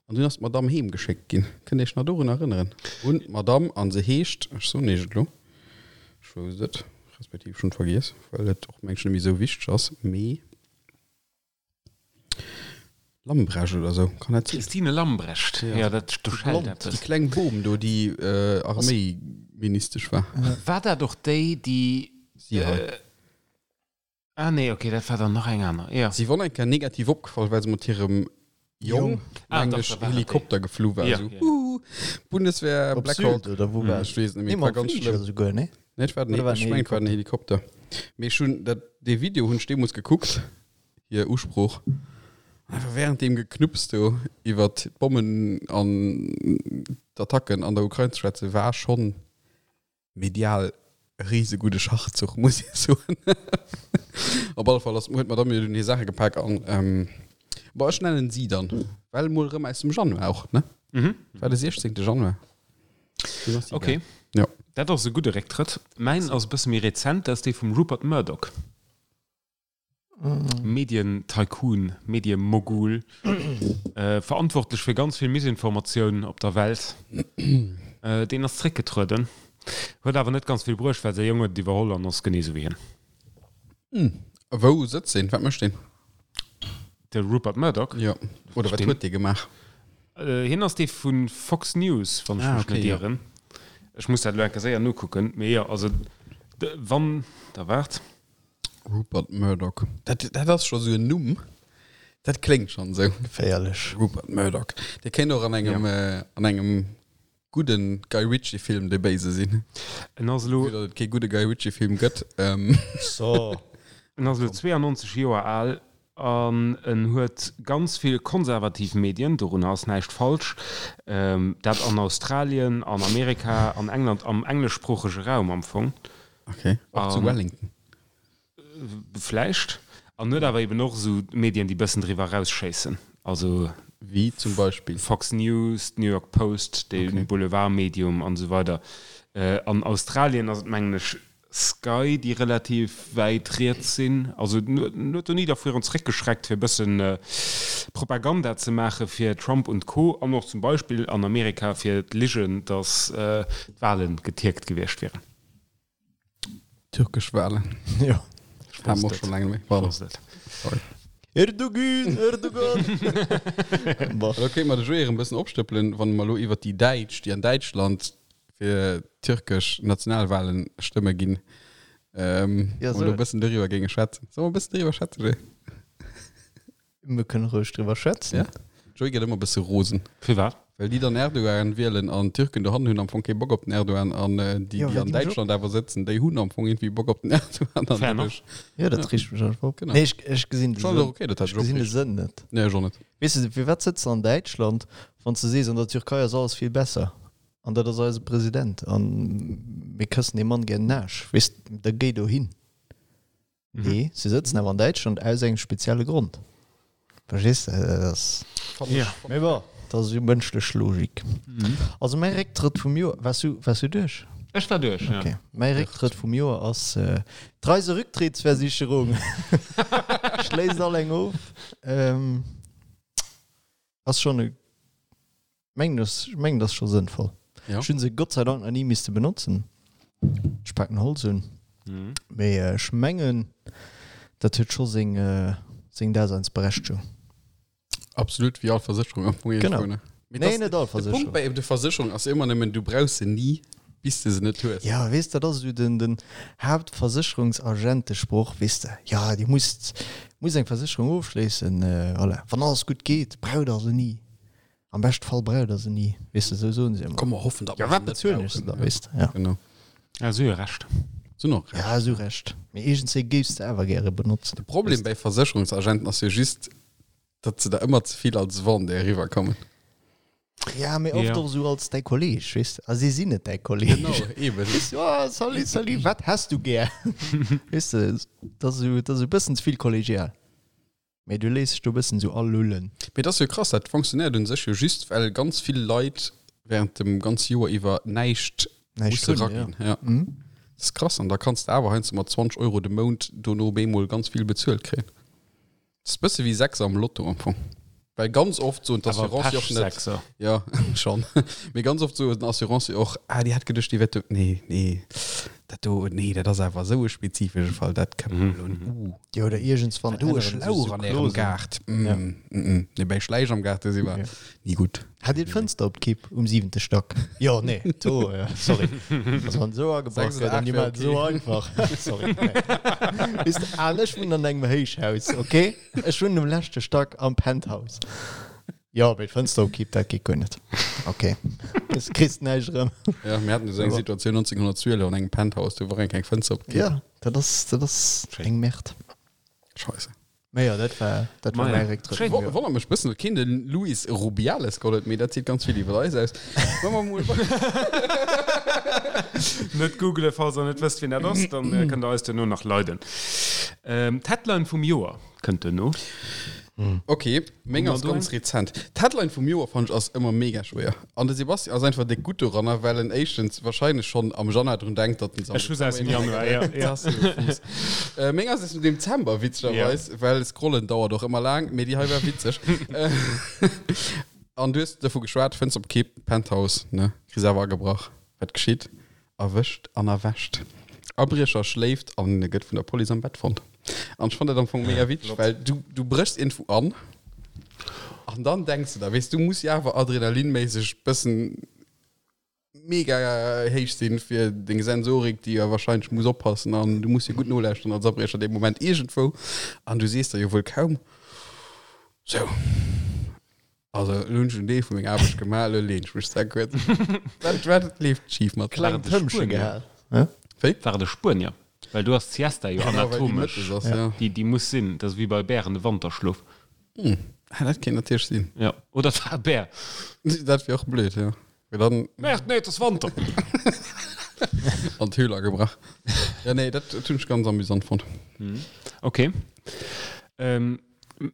an dunn ass d'Madamm heem geschéckt ginn. Kënnt Iech nach dorun erënneren? Un d'Madamm an se heescht, ech soen Iech et elo, ech wousst et, respektiv ech hunn et vergiess, well et och mengen ech net méi esou wichteg ass, mee. Lambrecht oder sou, kann dat sinn? Christine Lambrecht, jo, dat do schellt eppes. Déi kleng Bom do, déi Arméiministesch war. War dat och déi, déi. Si hei. Ah nee, okay, dat war dann nach eng aner, jo. Si wor eng Kéier negativ opgefall, well se mat hirem Jong, Ah, mengen dach, ech, da war dat déi. Helikopter geflu war, Jo, esou jo. Huuh. Wuh, Bundeswehr, Op Black Sylt Hawk. oder wou war Ech weess et net méi, Nee, et war mam ganz Fliger schlëmm. esouguer, nee? Nee, et war den, Oder war ech den mengen, et war den Helikopter. Mee ech hunn dat, dee Video hunn ech deemools gekuckt, hir Usprooch. Einfach während deem Geknupps do iwwert d'Bommen an d'Attacken an der Ukrain ze schwätzen, war schonn medial e risegudde Schachzuch, muss ee soen. Op alle Fall ass, huet d'Madame jo dunn hir Saache gepak an, ähm, bon, ech nennen si dann, well mol erëm aus dem Januar och, ne? Mhm. War de 16. Januar. Dunn ass si Okay. gaang. Jo. Dat ass e gudde Récktrëtt. Mäin ass e bësse méi rezent, dat ass dee vum Rupert Murdoch. Medien-Tycoon, Medie-Mogul, verantwortlech fir ganz vill Misinformatioun op der Welt. Deen ass zréckgetrueden, huet awer net ganz vill bruecht, well säi Jong huet et iwwerholl an ass genee esou wéi hien. A wou sëtzt deen? Wat mécht deen? De Rupert Murdoch? Jo. Oder wat huet dee gemaach? Hien ass dee vu Fox News, wann ech mech net ieren. Ech muss dat elo eng Kéier séier nokucken. Mee jo, also wann Der waart. Rupert Murdoch. Dat, dat ass scho sou en Numm. Dat kléngt schonn sou. Geféierlech. Rupert Murdoch. Dee kéint och an engem, ja. äh, an engem gudden Guy Ritchie-Film de Béise sinn. En ass elo. Vue datt et kee gudde Guy Ritchie-Film gëtt. Ähm. So. En ass elo 92 Joer al an en huet ganz vill konservativ Medien, dorunner ass näischt falsch, dat an Australien, an Amerika, an England, am engleschsproochege Raum am Fong. Okay, och zu Wellington. Vläicht. An huet awer eben och esou Medien, déi bëssen driwwer erausschéissen. Also. Wéi zum Beispill? Fox News, d'New York Post, de Boulevardmedium an esou weider. An Australien ass et, mengen ech, Sky, déi relativ wäit riets sinn. Also en huet do ni dervirun zeréckgeschreckt, fir e bëssen Propaganda ze maache fir Trump und Co. An och zum Beispill an Amerika fir d'Ligen, datt d'Wale getierkt gewiescht wieren. Türkesch Walen. Jo. Ech wosst et. Schon Ech wosst et. Sorry. Erdogan, Erdogan. Bon. Da kéint mer de Joé erëm e bëssen opstëppelen, wann mer elo iwwert déi Däitsch, déi an Däitschland fir türkesch Nationalwalen stëmme ginn, ähm, Ja, wann mer elo soll. e bëssen doriwwer géinge schwätzen. Solle mer e bëssen doriwwer schwätzen, Joé? Mir kënne roueg driwwer schwätzen. Ja. Joy gëtt ëmmer bësse rosen. Firwat? Well déi dann Erdogan wielen an d'Türken dohannen hunn am Fong kee Bock op den Erdogan an déi, Ja, déi well an déi mech och. Däitschland awer sëtzen, déi hunn am Fong irgendwie Bock op den Erdogan an Fair enough. dadurch. Ja, dat reegt mech einfach op. Genau. Nee, ech, ech gesinn de Schon Sënn. okay, dat hat Ech ech och gesinn de reegt. Sënn net. Nee, ech och net. Weess de, firwat sëtz de an Däitschland, wann s de sees, an der Türkei ass alles vill besser an dat ass eise President an mir këssen deem Mann gär den Aarsch, weess de, da géi dohin. Nee, se sëtzen awer an Däitschland aus engem spezielle Grond. Verstees de? Dat ass. Ja. Mee bon, dat ass jo mënschlech Logik. Also mäi Récktrëtt vum Joer, waars du, waars du duerch? Ech war duerch, ja. Okay. Mäi Récktrëtt vum Joer ass äh, d'Reiserücktrittsversicherung. Schléisst all eng of. Ähm, ass schonn e Mengen ass, ech mengen, dat ass scho sënnvoll. Ja. Ech hunn se Gott sei Dank nach ni misste benotzen. Ech paken Holz un. Mhm. Mee ech mengen, dat huet scho seng, seng Daseinsberechtegung. Absolut, wéi all Versécherung am Fong Genau. irgendwo, ne? Mee Nee, das- net all De Punkt Versécherung. bei de Versécherung ass ëmmer nëmmen, du brauchs se ni, bis de se net hues. Ja, weess, dat ass esou den, den Haaptversécherungsagentesproch, weess de. Ja, Dir musst, musst eng Versécherung ofschléissen, voilà. Wann alles gutt geet, braucht Der se ni. Am beschte Fall braucht der se ni, weess de, sou soen se ëmmer. Komm, mer hoffen, datt Ja, mer wat se net bezuelen ech se brauchen. da, weess de, ja. Genau. Ja, si hu Recht. Si hunn och Recht. Ja, si hu Recht. Mee iergendzéi géifs de awer gäre benotzen. De Problem bei Versécherungsagenten ass jo just, datt se der ëmmer ze vill als Vendeur eriwwerkommen. Ja, mee oft Ja. och sou als däi Kolleeg, weess de. A si sinn net däi Kolleeg. Genau, eben. Weess du, oh, salut, salut, wat häss du gär? Weess de, dat ass esou, dat ass e bëssen ze vill kollegial. Mee du léiss dech do e bëssen esou alullen. Mee et ass jo krass, dat fonctionnéiert un sech jo just, well ganz vill Leit während dem ganze Joer iwwer näischt Näischt musse hunn, raginn. ja. Ja. Mhm. Dat ass krass. An da kanns de awer heiansdo mat 20 Euro de Mount dono op eemol ganz vill bezuelt kréien. Dat ass e bësse wéi Sechser am Lotto am Fong. Well ganz oft soen Awer d'Assurancë och net. Pech-Sechser. Ja, schon. Mee ganz oft soen d'Assurancë och, ah, déi hat geduecht, déi wär do. Nee, nee, dat do, nee, dat ass awer esou e spezifesche Fall, dat kënne mer elo net. Uh. Jo, oder iergendswann Do e änneren se Schlauch sou an ärem Clausen. Gaart. Mm, Ja. mm, mm. Nee, bei Schläich am Gaart, do si mer Ja. ni gutt. Hat Dir d'Fënster op d'Kipp um siwente Stack? Jo, nee, do, ja, sorry. Also wann esou agebrach Sechs oder gëtt an acht déi wär maachen et esou okay. einfach. Sorry, nee. Weess de, an ech wunnen an engem Héichhaus, okay? Ech wunnen um leschte Stack am Penthouse. Jo, mee d'Fënster op Kipp, dat geet guer net. Ok, du kriss näischt erëm. Ja, mir haten esou eng Situatioun 1912 an engem Penthouse, do war eng keng Fënster op Kipp. Ja, dat ass, dat ass eng Merde. Scheisse. Mee jo, dat war, dat war mäi Récktrëtt vum Joer. Wonnert mech bëssen, datt keen de Luis Rubiales geholl huet, mee dat seet ganz vill iwwer eis aus. Wa mer mol. Net googelen, falls der net wësst, wien dat ass, dann kënnt der eis duerno nach leiden. D'Headline vum Joer kënnt duerno. Ok, meng ass ganz rezent. D'Headline vum Joer fannen ech ass ëmmer mega schwéier. An de Sebastian ass einfach déck gutt doranner, well en éischtens wahrscheinlech schonn am Januar drun denkt, datt en se am Ech hu se aus dem Januar, ja, ja. Äh, meng ass aus dem Dezember, witzegerweis, well scrollen dauert och ëmmer laang, mee déi hei war witzeg. An du hues dovu geschwat, Fënster op Kipp, Penthouse, ne, kriss awer agebrach. Wat geschitt? Erwëscht an erwächt. Abriecher schléift an gëtt vun der Police am Bett fonnt. An ech fannt dat am Fong mega witzeg, well du, du bréchs iergendwou an an dann denks de der, weess du muss jo awer adrenalinméisseg bëssen mega héich sinn fir deng Sensorik, déi jo wahrscheinlech muss oppassen an du muss jo gutt nolauschteren als Abriecher dee Moment iergendwou an du sees der jo wuel kaum, sou. Also elo hunn ech en Deel vu menger Aarbecht gemaach, elo leen ech mech sehr kuerz. Wat, wat leeft schif mat Kleng Tëmmche gehal. Wéi? War et e Spuenier? Well do ass d'Siesta jo Genau, well déi anatomesch. mëttes ass, ja. Déi, déi muss sinn. Dat ass wéi bei Bären de Wanterschlof. Hm, ah, dat kéint natierlech sinn. Ja, oder et war e Bär. Dat wier och blöd, ja. Well dann Merde, nee, et ass Wanter! an d'Höhl agebrach. Ja, nee, dat, dat hunn ech ganz amüsant fonnt. Okay. Ähm,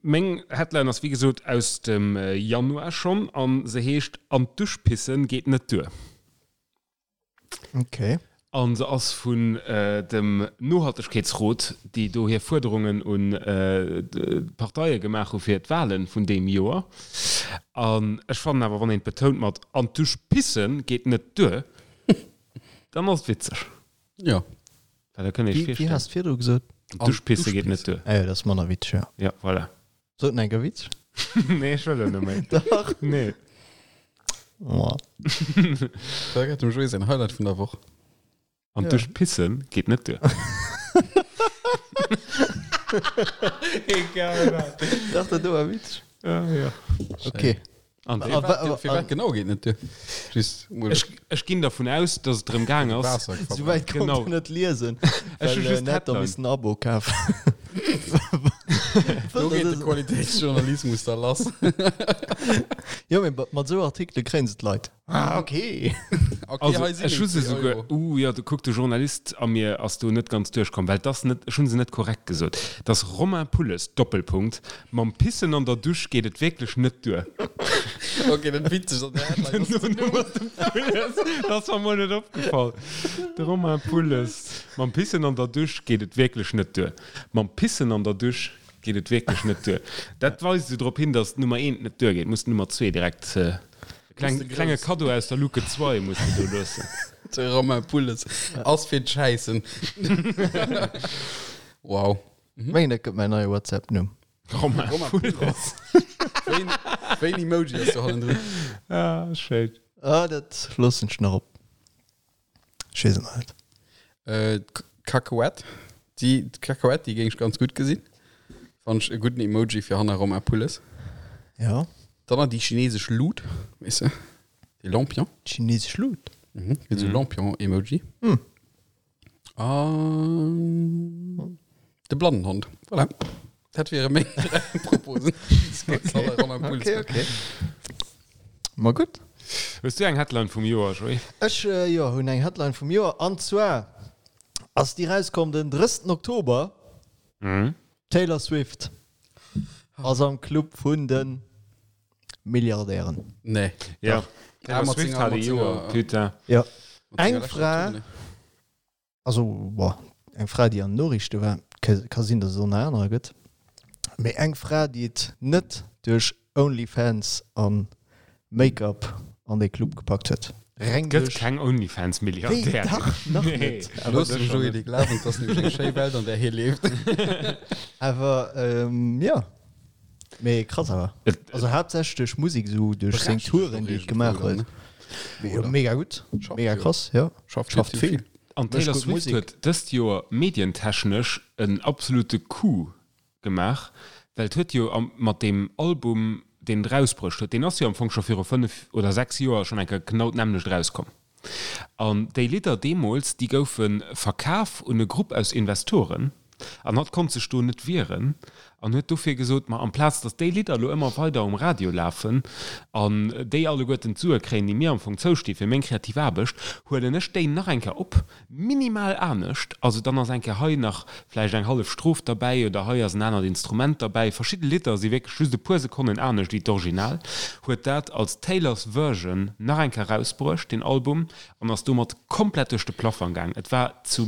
Meng Headline ass wéi gesot aus dem Januar schonn an se heescht An d'Dusch pissen geet net duer. Okay. An se ass vun dem Nohaltegkeetsrot, déi do hir Fuerderungen un d'Parteie gemaach hu fir d'Wahlen vun deem Joer. An ech fannen awer, wann een et betount mat An d'Dusch pissen geet net duer, dann ass et witzeg. Jo. Well da kënnt ee sech Wéi virstellen. has de virdru gesot? An d'Dusch pisse geet net duer. Ah jo, dat ass manner witzeg, jo. Ja, voilà. Sot en enker Witz? Nee, ech wëll elo net méi. Dach. Nee. Oh. Da gëtt dem Joé säin Highlight vun der Woch. An d'Dusch pissen geet net duer. Egal wat. Dach, dat do war witzeg. Ja, ja. Okay. An Fir wat, fir wat genau geet net duer? Just mol Ech, ech ginn dervun aus, dass et drëm gaang ass. Waasser Sou wäit konnt Genau. en net liesen, Ech hu well just en hätt da d'Headline. missen en Abo kafen. Do geet de Qualitéitsjournalismus da lass. Jo, mee mat esou Artikele kréien se d'Leit. Ah, okay. Okay, Also, hei sinn ech hu se 90 souguer, Euro. uh, jo, du kuck, de Journalist a mir ass do net ganz duerchkomm, well 't ass net, ech hu se net korrekt gesot. 't ass Romain Pulles, Doppelpunkt, Mam Pissen an der Dusch geet et wierklech net duer. Okay, dat witzeg an der Headline ass den Numm. Pulles, dat ass mer mol net opgefall. De Romain Pulles, Mam Pissen an der Dusch geet et wierklech net duer. Mam Pissen an der Dusch geet et wierklech net duer. Dat weist esou drop hin, datt d'Nummer eent net duergeet. Muss d'Nummer zwee direkt, e kleng, klenge Kaddo aus der Luke 2 muss de do loossen. De Romain Pulles ass fir d'Schäissen. Wow. Mengen dat gëtt mäin neie WhatsApp Numm. Romain Pulles. Wéi en Emoji ass do hannendrun? Ah, schéin. Ah, dat loossen ech nach op. Ech weess et nach net. Äh, d'Kakuett. Déi d'Kakuett, déi géing ech ganz gutt gesinn. Fannen ech e gudden Emoji fir hanner Romain Pulles. Ja. Dann nach déi chinesesch Lut, weess de? Déi Lampion. Chinesesch Lut? Mhm, gëtt esou Lampion-Emoji. Hm. An de Blannenhond. Voilà. Dat wiere meng dräi Proposen. Okay, okay. Ma gutt. Hues du eng Headline vum Joer, Joé? Ech, jo, hunn eng Headline vum Joer. An zwar ass déi rauskomm den 30. Oktober. D'Taylor Swift ass am Club vun de Milliardären. Nee. Ja. Taylor Swift hat e Joer, putain. Jo. Eng Fra, also bon, eng Fra, déi an den Noriichte war, ka sinn, datt et och nach anerer gëtt, mee eng Fra, déi et net duerch OnlyFans a Make-up an dee Club gepackt huet. Reng duerch. Gëtt keng OnlyFans-Milliardärin. Wéi? Dach, nach net. Looss dem Joé dee Glawen, et ass nämlech eng schéi Welt, an där hie leeft. Awer jo. Mee krass awer. Also haaptsächlech duerch Musek, esou duerch seng Touren, déi et gemaach huet. Mega gutt, mega krass, jo. Schafft vill. An d'Taylor Swift huet dëst Joer medientechnesch en absolute Coup gemaach, well et huet jo mat deem Album. deen et erausbruecht huet, deen ass jo am Fong scho viru 5 oder 6 Joer schonn eng Kéier genau d'nämmlecht erauskomm. An déi Lidder deemools, déi goufe verkaf un e Grupp aus Investoren an hatt konnt sech do net wieren an huet dofir gesot, ma amplaz datt déi Lidder elo ëmmer weider um Radio lafen an déi alleguerten d'Sue kréien, déi mir am Fong zousti fir meng kreativ Aarbecht, huelen ech déi nach eng Kéier op, minimal anescht, also dann ass eng Kéier hei nach vläicht eng hallef Stroph derbäi oder hei ass en anert Instrument derbäi. Verschidde Lidder si wierklech just e puer Sekonnen anescht wéi d'Original. Huet dat als Taylor's Version nach eng Kéier erausbruecht, deen Album, an ass domat komplett duerch de Plafang gaang. Et war zu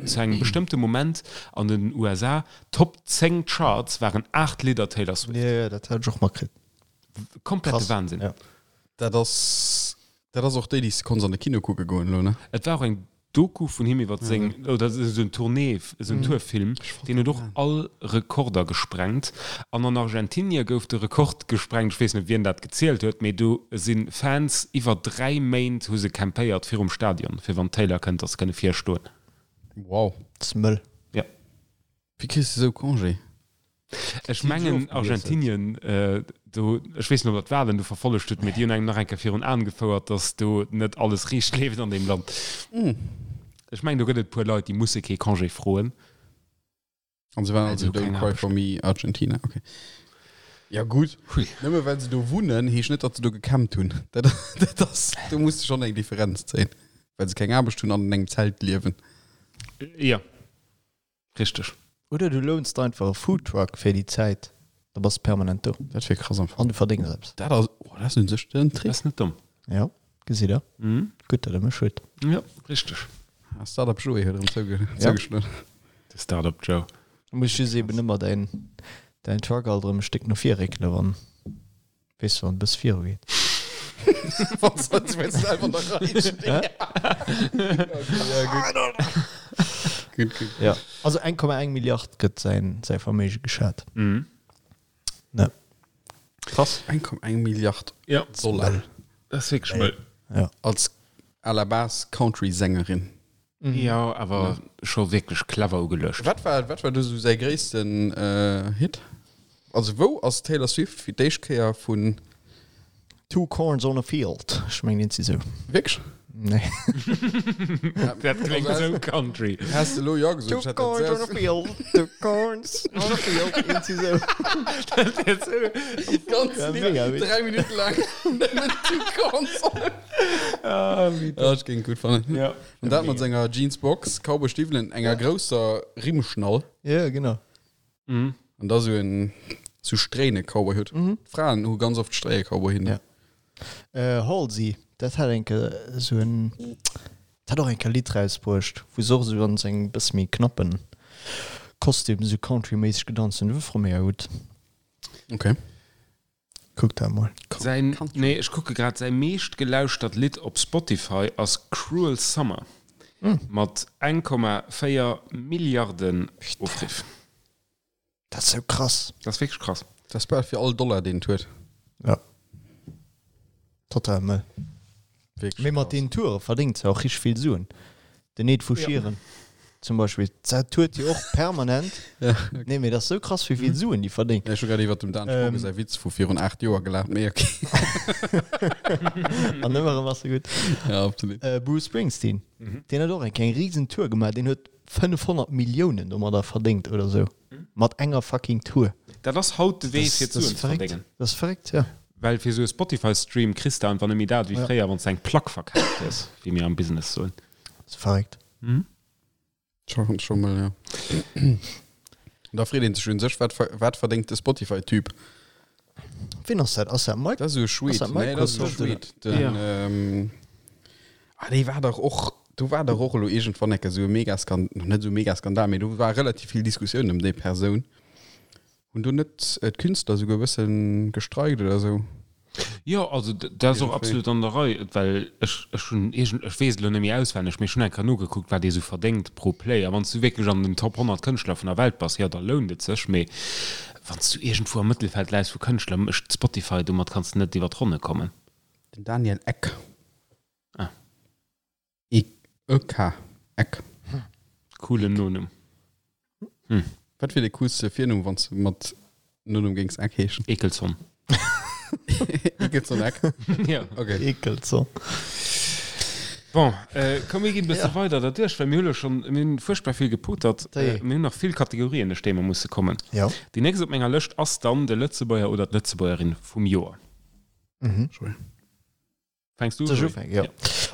zu engem bestëmmte Moment an den USA, Top 10 Charts waren 8 Lidder Taylor Swift. Jo, jo, dat hat ech och matkritt. Komplette Wahnsinn. Ja. Dat ass Dat ass och déi, déi s de konns an de Kino kucke goen elo, ne? Et war och eng Doku vun him iwwer seng, oder esou en Tournée, esou en Tourfilm, deen huet och all Rekorder gesprengt. An an Argentinie gouf de Rekord gesprengt, ech weess net, wien dat gezielt huet, mee do si Fans iwwer 3 Méint hu se campéiert virum Stadion, fir wann d'Taylor kënnt, datt se kënne virstoen. Wow. Dat ass mëll. Ja. Wéi kriss de sou Congé? Ech mengen Argentinien, do, ech weess net ob der d'Wahlen do verfollegt hutt, mee déi hunn engem nach eng Kéier virun Aen gefouert, datt do net alles riicht leeft an deem Land. Ech mengen do gëtt et e puer Leit, déi musse kee Congé froen. An se waren Well se also hu Don't keng cry Aarbecht. for me Argentina, okay. Ja gutt, Hui. nëmme well se do wunnen, heescht net, datt se do gecampt hunn. Dat, dat ass, do muss de schonn eng Differenz zéien, well se keng Aarbecht hunn an an engem Zelt liewen. Jo. Richteg. Oder du lounst der einfach e Foodtruck fir déi Zäit, da bass de permanent do. Dat wier krass am Fong. An du verdéngs eppes. Dat ass, oh, dat ass un sech den Trick. Dat ass net domm. Jo, gesitt der. Gutt, datt der mech hutt. Jo, richteg. Ah, Startup Joé huet erëm zougeschloen. De Startup Joe. Da muss just eben ëmmer däin, däin Truck alt erëm e Stéck no vir réckele wann. Weess du, wann e bësse viru geet. Wann se selwer an der Rei stinn. Okay, ja, gutt. Gutt, gutt. Ja, also 1,1 Milliard gëtt säin, säi Verméige geschat. Mhm. Ne. Krass. 1,1 Milliard Ja. Dollar. Dat ass wierklech mëll. Ja. Als à la base Country-Sängerin. Jo, awer scho wierklech clever ugeluecht. Wat war, wat war do sou säi gréissten Hit? Also wou ass Taylor Swift fir d'éischt Kéier vun. Two corns on a field, ech mengen eent si sou. Wierklech? Nee. Dat kléngt sou country. Häss de elo jo gesot, ech Two hätt dat corns on a selbst. field, two corns on a field, eent si sou. Dat wär sou. Ganz Ja, Lidd, mega witzeg. 3 Minutte laang nëmmen Two corns on a Ah, wéi Ja, ech géing et gutt fannen. Ja. An dat mat senger Jeansbox, Cowboystiwwelen, enger grousser Rimmschnall. Ja, genau. Mhm. An da sou en sou Stréine-Cowboyhutt. D'Fraen hu ganz oft Stréie-Cowboyhitten. Ja. Äh, Halsey, dat hat eng Kéier sou en, dat hat och eng Kéier e Lidd rausbruecht, wou se och sou an sengem bësse méi knappen Kostüm sou country-méisseg gedanzt hunn. Dat war mega gutt. Okay. Kuck dat mol. Säin, nee, ech kucke grad, säi meescht gelauschtert Lidd op Spotify ass Cruel Summer mat 1,4 Milliarden Ofriff. Dat ass sou krass. Dat ass wierklech krass. Dat ass bal fir all Dollar, deen et huet. Ja. Total mëll. Wierklech Mee mat krass. deenen Toure verdéngt se och richteg vill Suen. Den Ed vu Sheeran zum Beispill, dat tourt jo och permanent. Ja, okay. Nee, mee dat ass sou krass, wéi vill Suen déi verdéngt. Ja, ech hu grad iwwert dem Dan Spogen säi Witz vu virun 8 Joer gelaacht, mee okay. An ëmmer erëm ass e gutt. Ja, absolut. Bruce Springsteen, deen huet och eng eng risen Tour gemaach, deen huet 500 Milliounen domadder verdéngt oder sou. Mat enger fucking Tour. Dat ass haut de Wee fir Suen ze verdéngen. Dat ass verréckt, ja. Well fir esou e Spotify-Stream kriss de einfach net méi dat wéi fréier, wann s de eng Plack verkaaft hues, wéi mir am Business soen. Dat ass verréckt. Scho scho mol, ja. An da freet een sech un sech, wat wat verdéngt de Spotify-Typ? Wien ass dat? Ass dat Mike? Dat ass esou e Schweed. Ass dat Nee, dat ass esou e Microsoft oder? Schweed. Den, ähm, ah, dee war dach och, do war dach och elo iergendwann eng Kéier esou e Megaskan-, net esou e Megaskandal, mee do war relativ vill Diskussioun ëm déi Persoun. Hunn do net d'Künstler esouguer e bësse gestreikt oder esou? Jo, also dat ass och absolut an der Rei, well ech, ech hunn iergend, ech weess et elo net méi auswenneg, mee ech hunn eng Kéier nogekuckt, wat ee sou verdéngt pro Play. A wann s du wierklech an den Top 100 Kënschtler vun der Welt bass, jo, da lount et sech. Mee wann s du iergendwou am Mëttelfeld läis vu Kënschtler, mécht Spotify, domat kanns de net iwwer d'Ronne kommen. Den Daniel Ek. Ah. E K. Eck. Coolen Nonumm. Wat wier de coolste Virnumm, wann s de mat Nonumm géings Eck heeschen? Ekelson. Ekelson Eck. Ja. Okay. Ekelson. Bon, äh, komm mir ginn e bësse weider derduerch, well mir hu lo schonn, mir hunn fuerchtbar vill gepotert. Déi. Äh, mir hunn nach vill Kategorien, duerch déi mer musse kommen. Ja. Déi nächst op menger Lëscht ass dann de Lëtzebuerger oder d'Lëtzebuergerin vum Joer. Mhm. Joé. Fänks du u, Soll ech Joé? ufänken? Ja.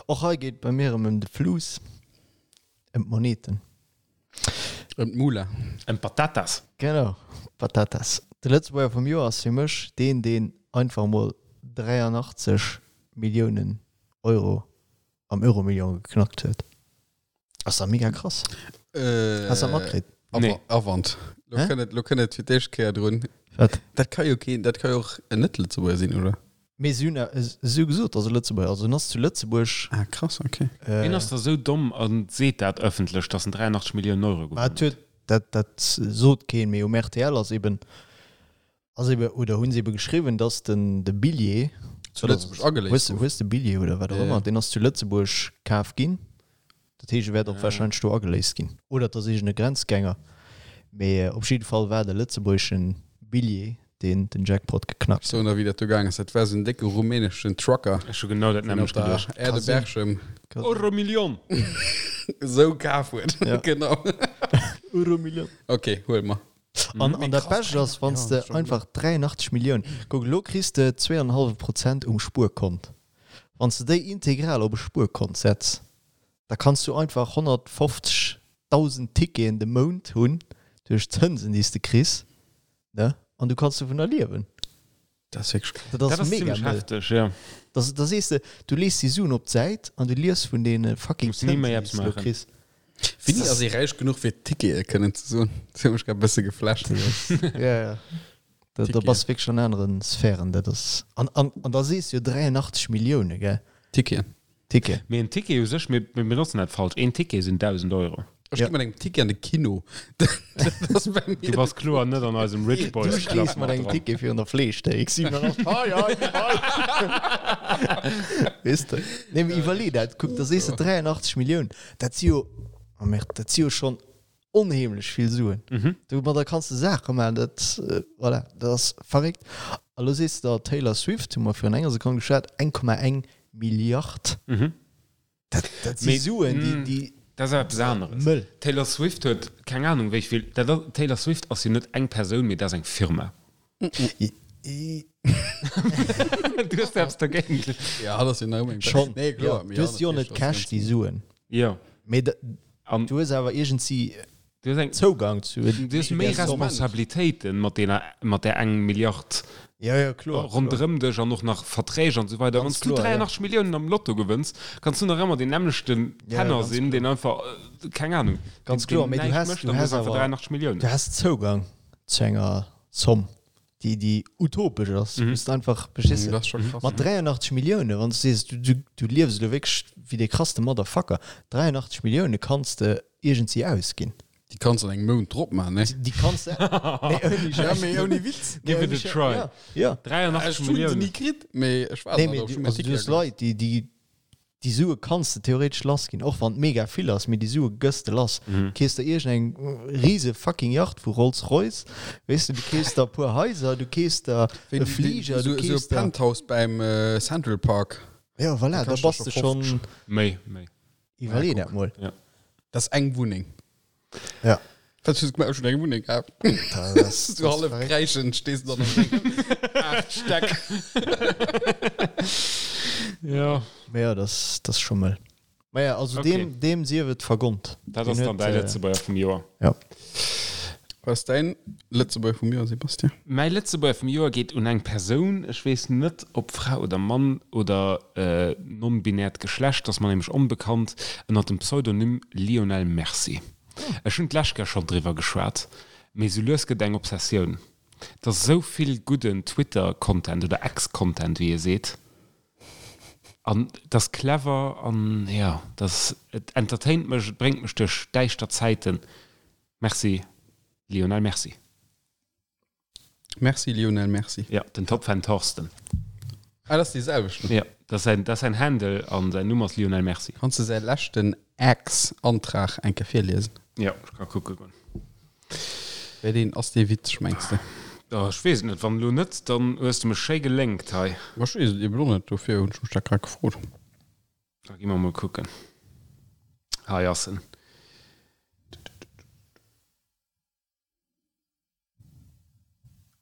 Och hei geet bei mir erëm ëm de Fluss, ëm d'Moneten. Ëm d'Mula. Ëm d'Patatas. Genau, Patatas. De Lëtzebuerger vum Joer ass fir mech deen, deen einfach emol 83 Milliounen Euro am Euromillion geknackt huet. Ass da mega krass. Äh, Hast du dat matkritt? Nee. Avant. Lo Hä? kënnt et, lo kënnt et fir d'éischt Kéier drun. Wat? Dat ka jo keen, dat ka jo och en Net-Lëtzebuerger sinn, oder? Mee si hunn si hu gesot, dass e Lëtzebuerger, also en ass zu Lëtzebuerg. Ah, krass, okay. Äh, Wien ass da sou domm a seet dat ëffentlech, dass en 83 Milliounen Euro Ma gewonnen et huet, dat, dat sot keen, mee um rtl ass eben, ass eben, oder hunn se eben geschriwwen, dass den, de Billjee, Zu Lëtzebuerg ageléist hues, gouf. hues de Billjee oder wat och Ja, ja. ëmmer, deen ass zu Lëtzebuerg kaf ginn. Dat heescht, e wäert och Ah. warscheinlech do ageléist ginn. Oder et ass iergend e Grenzgänger. Mee op jidde Fall war et e lëtzebuergeschen Billjee, deen den Jackpot geknackt Ech soen der, wéi dat do gaang ass. Dat war esou en décke rumäneschen Trucker, Ech hu genau dat deen op nämmlecht der geduecht. Aire de Berchem huet. Euromillion! esou kaf huet. Ja. Genau. Euromillion. Okay, huel mer. An, an dat Bescht ass, wann s de einfach 83 Milliounen, kuck, elo kriss de 2,5 Prozent um Spuerkont. Wann s de déi integral op e Spuerkont setz, da kanns du einfach 150.000 Ticketen de Mount hunn duerch d'Zënsen, déi s de kriss, ne? An du kanns dovunner liewen. Dat ass wierklech krass. Dat Dat ass ass mega zimmlech mëll. hefteg, ja. Da, da sees de, du lees déi Suen op d'Säit an du lies vun deene fucking Muss ni Zënsen, méi déi eppes s de elo maachen. kriss. Wéini ass ee räich genuch fir Tickete kënnen ze soen? Dat huet mech grad e bësse geflasht. Ja, ja. Da, da Ticketen. bass wierklech an aneren Sphären. Dat ass, an, an, an da sees du jo 83 Millioune, gell? Ticketen. Ticket. Mee en Ticket u sech, mir mir benotzen dat falsch, een Ticket sinn 1.000 Euro. Ech Ja. gi mat engem Ticket an de Kino. Dat ass bei Du mir. bass kloer net an eisem Rich Du Boys Club stees mat mat engem dran. Ticket virun der Fleeschthéik. 87, hei, hei, hei. Weess de? Nee, mee iwwerlee dat. Kuck, da sees de 83 Milliounen. Dat si jo, oh merde, dat si jo schonn onheemlech vill Suen. Mhm. Domadder kanns de Saache maachen, dat, voilà, dat ass verréckt. A lo sees de der Taylor Swift, hu mer virun enger Sekonn geschwat, 1,1 Milliard. Mhm. Dat, dat si Mee, Suen, déi, mm, déi Dat ass eppes aneres. mëll. Taylor Swift huet keng Ahnung wéi vill, dat ass, Taylor Swift ass jo net eng Persoun, mee dat ass eng Firma. I, i, Du hues eppes dergéint. Ja, dat ass jo nach ëmmer eng schon. Nee, kloer. Ja, mee du hues jo natierlech net ass Cash, ganz- déi Suen. Jo. Mee da, An du hues awer iergendsi du hues eng, Zougang zu. du hues méi der Somme. Responsabilitéiten mat dener, mat där eng Milliard Ja, ja, kloer. ronderëm dech an och nach Verträg an esou weider. Ganz Wann s du kloer, ja. 83 Milliounen am Lotto gewënns, kanns du nach ëmmer deen nämmlechten Ja, Penner ganz sinn, deen einfach, äh, keng Ahnung, Ganz deen, kloer, deen mee du näischt has- mécht du an du has hues einfach awer- 83 Milliounen. Du has Zougang zu enger Zomm, déi, déi utopesch ass. Mhm. Du bist einfach, verstees Mm, du? Dat ass scho krass. Mat 83 Millioune, wann du sees, du, du, du liefs elo wierklech wéi dee krasste Motherfucker, 83 Millioune kanns de iergendsi ausginn. Déi kanns an engem Mount drop maachen, ne? Déi kanns de. Nee, ouni Ja, Schäiss. mee ouni Witz. Nee, Give it ouni a Schäiss. try. Ja, ja. 83 Ech hunn se Milliounen. ni kritt, mee ech war Nee, nach mee do, du, ech hunn also, du mäin hues Ticket agemaach. Leit, déi, déi, déi Sue kanns de theoretesch lass ginn, och wann et mega vill ass, mee déi Sue gëss de lass. Mhm. Kees der iergendeng rise fucking Yacht vu Rolls-Royce, weess de, du kees der e puer Haiser, du kees der Wéi e Fliger, esou du esou e kees der. Penthouse beim äh, Central Park. Ja, voilà, Da da kascht bass dat de scho schonn. 50. Méi, méi. Iwwerlee Ja, dat mol. Dat ass eng Wunneng. Ja. Wat hues du gemaach? Ech hunn eng Wunneng gehabt. Dat ass- Du hallef kräischend stees du dann an dengen 8 Stäck. Ja. Mee ja, dat ass, dat ass scho mëll. Ma ja, also Okay. deem, deem sief et vergonnt. Dat Deen ass dann huet, däi äh, Lëtzebuerger vum Joer. Ja. Was ass däin Lëtzebuerger vum Joer, Sebastian? Mäi Lëtzebuerger vum Joer geet un eng Persoun, ech weess net ob Fra oder Mann oder äh, non-binäert Geschlecht, ass mer nämlech onbekannt, ënner dem Pseudonym Lionel Merci. Ech hunn d'lescht Kéier schonn driwwer geschwat, mee sou lues gëtt eng Obsessioun. Et ass esou vill gudden Twitter-Content oder X-Content, wéi ee seet. An et ass clever an jo, et ass, et entertaint mech, et bréngt mech duerch däischter Zäiten. Merci Lionel Merci. Merci Lionel, merci. Ja, den Topfan Thorsten. Ah, dat ass dee selwechten. Ja, dat ass säin, dat ass säin Handle an säin Numm ass Lionel Merci. Kanns de säi leschten Ex-Antrag eng Kéier virliesen? Ja, ech ka kucke goen. Wéi deen ass dee witzeg, mengs de? Oh, ech weess et net. Wann elo net, dann hues de mech schéi gelénkt hei. Ma ech weess et eben och net, dofir hunn ech mech dat grad gefrot. Da gi mer mol kucken. Hei ass en.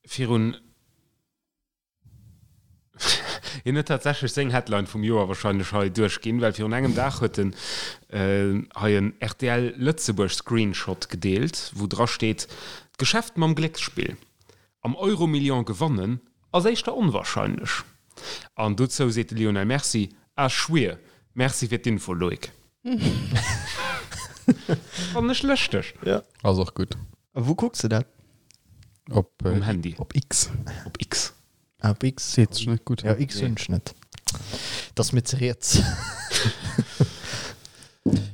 Virun. Hien huet tatsächlech seng Headline vum Joer wahrscheinlech hei duerchginn, well virun engem Dag huet en hei en rtl Lëtzebuerg Screenshot gedeelt, wou dra steet, D'Geschäft mam Glécksspill am Euromillion gewannen ass éischter onwahrscheinlech. An dozou seet de Lionel Mercy, Ah schwier, merci fir d'Info Loïc. Fannen ech lëschteg. Ass och gutt. A wou kucks de dat? Op, Um Handy. Op X. Op X. Ah, op X. Seet sech net gutt. Ja, X hunn ech net. Dat ass mir ze riets.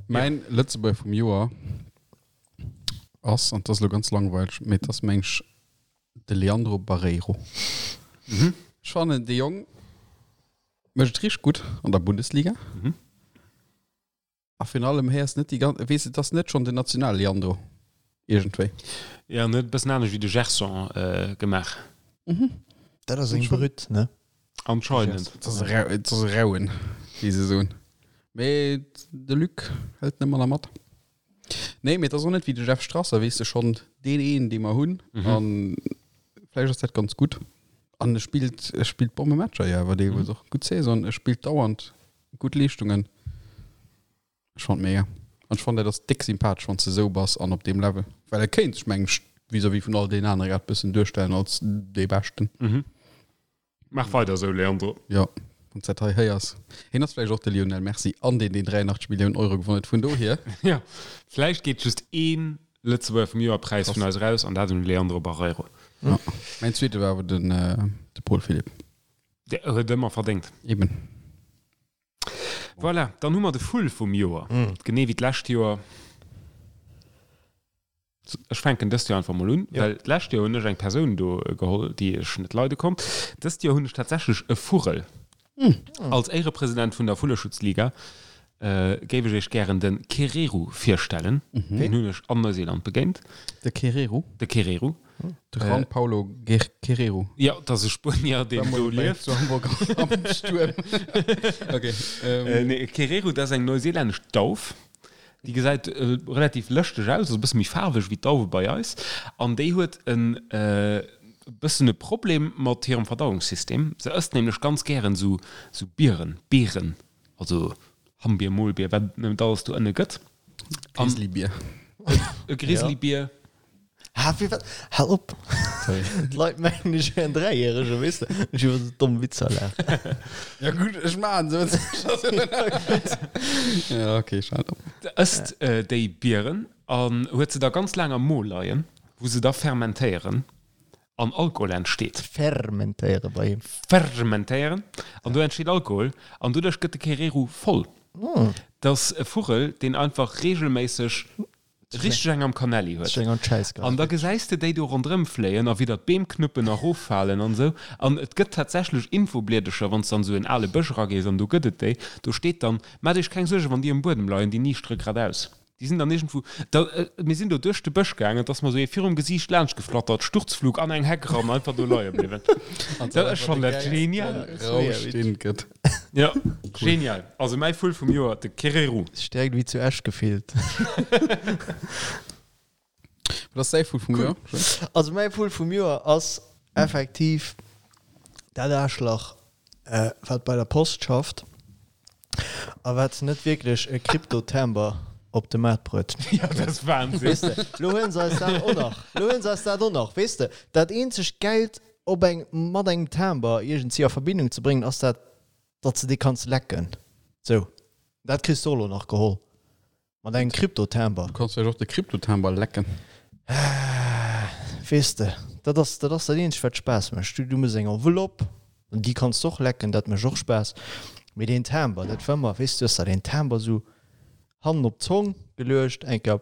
Mäin Lëtzebuerger vum Joer ass, an 't ass elo ganz langweileg, mee 't ass meng ech de Leandro Barreiro. Ech fannen, dee Jong mécht et richteg gutt an der Bundesliga. A virun allem héiers net déi ganz, weess et ass net schonn den National-Leandro iergendwéi. Jo, en huet e bëssen anescht wéi de Gerson gemaach. Dat ass eng Brütt, ne? Anscheinend. Et ass e rau, et ass e rauen, wéi se soen. Mee de Luc hëlt net manner mat. Nee, mee et ass och net wéi de Jeff Strasser, weess de, schonn deen een, dee mer hunn. An vläicht ass dat ganz gutt. An e spillt, e spillt Bommematcher jo awer deelweis och. Gutt Saison, e spillt dauernd Gutt Leeschtungen. Ech fand mega. An ech fand dat ass déck sympathesch wann s de esou bass an op deem Level. Well e kéint sech mengg ech vis-à-vis vun all deenen anere grad bëssen duerstellen als dee Beschten. Mhm. Maach weider esou Leandro. Jo, wann s dat hei héiers. Hien ass vläicht och de Lionel Messi an deen deen 83 Milliounen Euro gewonnen huet. Vun dohier. Jo, vläicht geet just een Lëtzebuerger vum Joer Präis vun eis eraus an dat un de Leandro Barreiro. Jo. Mäin zweete war awer den de Paul Philipp. Dee huet ëmmer verdéngt. Eben. Voilà, dann hu mer de Vull vum Joer. Genee wéi d'lescht Joer. Ech fänken dëst Joer einfach mol un, well d'lescht Joer hunn ech eng Persoun do geholl, déi ech net leide konnt. Dëst Joer hunn ech tatsächlech e Vugel. Als Éierepresident vun der Vulleschutzliga géif ech iech gären de Kereru virstellen. Deen hunn ech an Neuseeland begéint. De Kereru? De Kereru. De Juan Paulo Guerrero. Jo, dat ass e Spuenier, deen do lieft. Zu Hamburg am Stuerm. Okay. Nee, Kereru, dat ass eng neuseelännesch Dauf. Déi gesäit relativ lëschteg aus, ass e bësse méi faarweg wéi d'Dauwe bei eis. An déi huet e bëssen e Problem mat hirem Verdauungssystem. Se ësst nämlech ganz gären esou Bieren, Beeren, also Hammbier, Molbier, wat et net alles do ënne gëtt. Grizzlybier. E Grizzlybier. Ha, fir wat? Hal op! Sorry. D'Leit mengen, ech wär en Dräijäregen, weess de, ech iwwer esou domm Witzer laachen. Ja gutt, ech maachen se. Ja, okay, ech halen op. Ësst déi Bieren an huet se da ganz laang am Mo leien, wou se da fermentéieren an Alkohol entsteet. Fermentéiere bei him. Fermentéieren an do entsteet Alkohol an doduerch gëtt de Kereru voll. Dat ass e Vugel, deen einfach reegelméisseg Richteg eng am Kanelli huet. An da gesäis de déi do ronderëm fléien a widder d'Beem knuppen a roffalen an esou. An et gëtt tatsächlech Infobliedercher, wann s de an esou en ale Bësch eragees, an do gëtt et déi, do steet dann, Maacht iech keng Suergen, wann déi um Buedem leien, déi niischtere gradaus. Déi sinn dann iergendwou, da, mir sinn do duerch de Bësch gaangen, et ass mer esou ee virum Gesiicht laanscht geflattert, Sturzflug an eng Heck eran, einfach do leie bliwwen. Dat, ech fannen dat genial. Rausch, deen et gëtt. Ja, genial. Also mäi Vull vum Joer, de Kereru. Stäerkt wéi zu Esch gefillt. Wat ass däi Vull vum Joer? Also mäi Vull vum Joer ass effektiv dat Aarschlach, wat bei der Post schafft a wat net wierklech e Krypto-Timber op de Maart bruet. Ja, dat ass Wahnsinn. Weess de, lo huelen se eis dat och nach. Lo huelen se eis dat och nach. Weess de, dat eenzegt Geld op eng mat engem Timber iergendwéi a Verbindung ze bréngen, ass dat, datt s de dee kanns lecken. Sou, dat kriss de och elo nach geholl mat engem Krypto-Timber. Du kanns vläicht och de Krypto-Timber lecken. Weess de, dat ass dat ass dat eenzegt, wat Spaass mécht. Du du méchs eng Enveloppe, an déi kanns de och lecken, dat mécht och Spaass. Mee deen Timber, dat war ëmmer, weess de, du hues der deen Timber sou Hannen op d'Zong geluecht, eng Kéier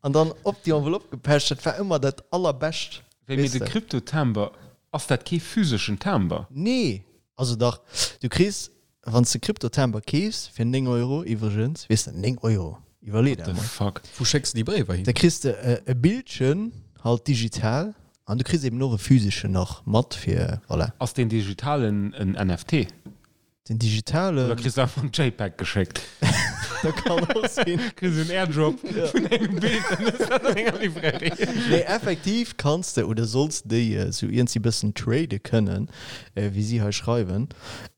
an dann op déi Enveloppe gepecht. Dat war ëmmer dat allerbescht. Wéi, mee de Krypto-Timber, ass dat kee physeschen Timber? Nee, also dach, du kriss, wann s de Krypto-Timber keefs, fir 9 Euro iwwregens, weess de, 9 Euro, iwwerlee der emol. What the fuck? Wou schécks de déi Bréiwer hin? Da kriss de e Bildchen. halt digital an du kriss eben och e physeschen nach mat fir voilà. Ass deen digitalen en NFT? Den digitalen. Oder kriss du einfach en JPEG geschéckt? Dat kann och sinn. Kriss en Airdrop vun engem Bild an hues dat an enger Librairie. Nee, effektiv kanns de oder solls de déi esou iergendwéi bëssen trade kënnen, wéi si hei schreiwen.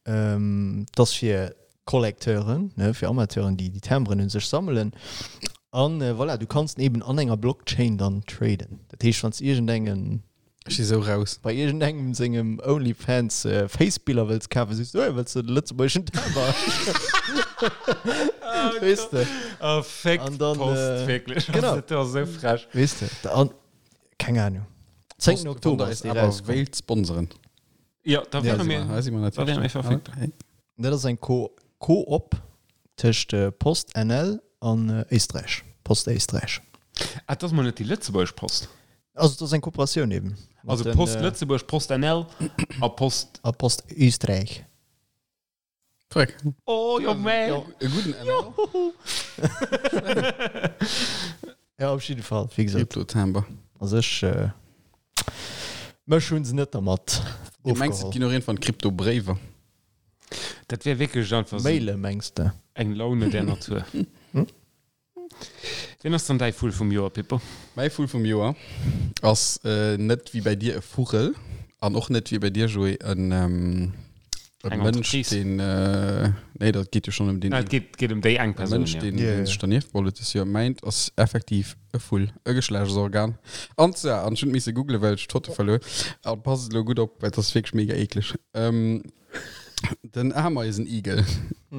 Dat ass fir Collecteuren, ne, fir Amateuren, déi déi Timberen un sech sammelen. An voilà, du kanns den eben an enger Blockchain dann traden. Dat heescht, wann s de iergendengen. Ech si sou raus. Bei iergendengem sengem Onlyfans Face-Biller wëlls kafen, sees du, hey, wëlls de de lëtzebuergeschen Timber? Weess de? Oh, féck An dann, d'Post, wierklech. Genau. Dat ass esou frech. Weess de? An, keng Ahnung. 10. Oktober ass dee awer rauskomm. wéilt sponseren. Jo, da Ja, wäre mir, Da si mer da wäre mir verfügbar. Hey. Dat ass eng Co Co-op tëscht Post NL an Éisträich, Post Éisträich. Ah, dat ass mol net déi lëtzebuergesch Post. Also et ass eng Kooperatioun eben. Mat Also den, Post Lëtzebuerg, Post NL a Post. A Post Österreich. Korrekt. Oh jo mä. E gudden NL. Ja, op jidde Fall, wéi gesot. Krypto-Timber. Also ech, mech hunn se net dermat Du mengs, et ofgeholl. ginn och iergendwann Krypto-Bréiwer? Dat wär wierklech einfach esou Maile mengs de? eng Laune der Natur. Wien ass dann däi Vull vum Joer, Pippo? Mäi Vull vum Joer ass net wéi bäi dir e Vugel an och net wéi bäi dir, Joé, en e Eng Mënsch, Entreprise. deen, nee, dat geet jo schonn ëm deen Ah, et geet, geet ëm déi eng e Persoun, Mënsch, jo. deen, Ja, deen ja. sech dernieft beholl huet dës Joer. Mäint ass effektiv e Vull, e Geschlechtsorgan. An zwar, an ech hunn et misse googlen, well ech d'Foto verluer, a passt elo gutt op, well et ass wierklech mega eekleg, den Ameisenigel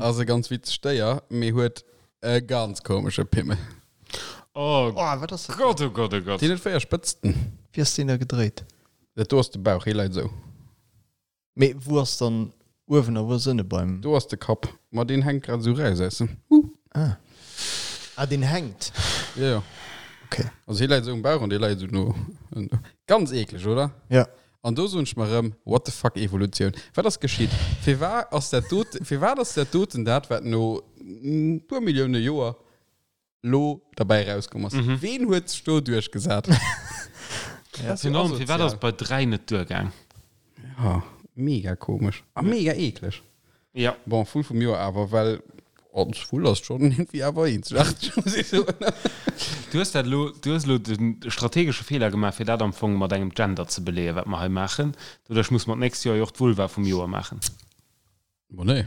ass e ganz witzegt Déier, mee huet E ganz komesche Pimmel. Oh Oh, wat ass dat? Gott, oh Gott, oh Gott. Deen huet 4 Spëtzten. Wéi ass deen da gedréit? Dat do ass de Bauch, hee läit esou. Mee wou ass dann uewen a wou ass ënne beim. Do ass de Kapp. Ma deen hänkt grad esou raus aus dem. Huh. Ah. Ah, deen hänkt. Jo, jo. Okay. Also hee läit esou um Bauch an dee läit esou no. Ganz eekleg, oder? Ja. An do soen ech mer erëm, what the fuck Evolutioun, wat ass geschitt? Firwat ass dat doten, firwat ass dat doten dat, wat no e puer Millioune Joer lo derbäi erauskomm ass? Ween huet sech do duerchgesat? Ja. Dat ass jo Virun allem, firwat ass asozial. et bei 3 net duergaang? Ja, mega komesch a mega eekleg. Ja. Bon, Vull vum Joer awer, well als Vull ass schon irgendwie awer eenzegaarteg, muss ech soen. Du hues dat elo, du hues elo de strategesche Feeler gemaach, fir dat am Fong mat engem Gender ze beleeën, wat mer hei maachen. Doduerch muss mer d'nächst Joer jo och d'Vulva vum Joer maachen. Bon, nee.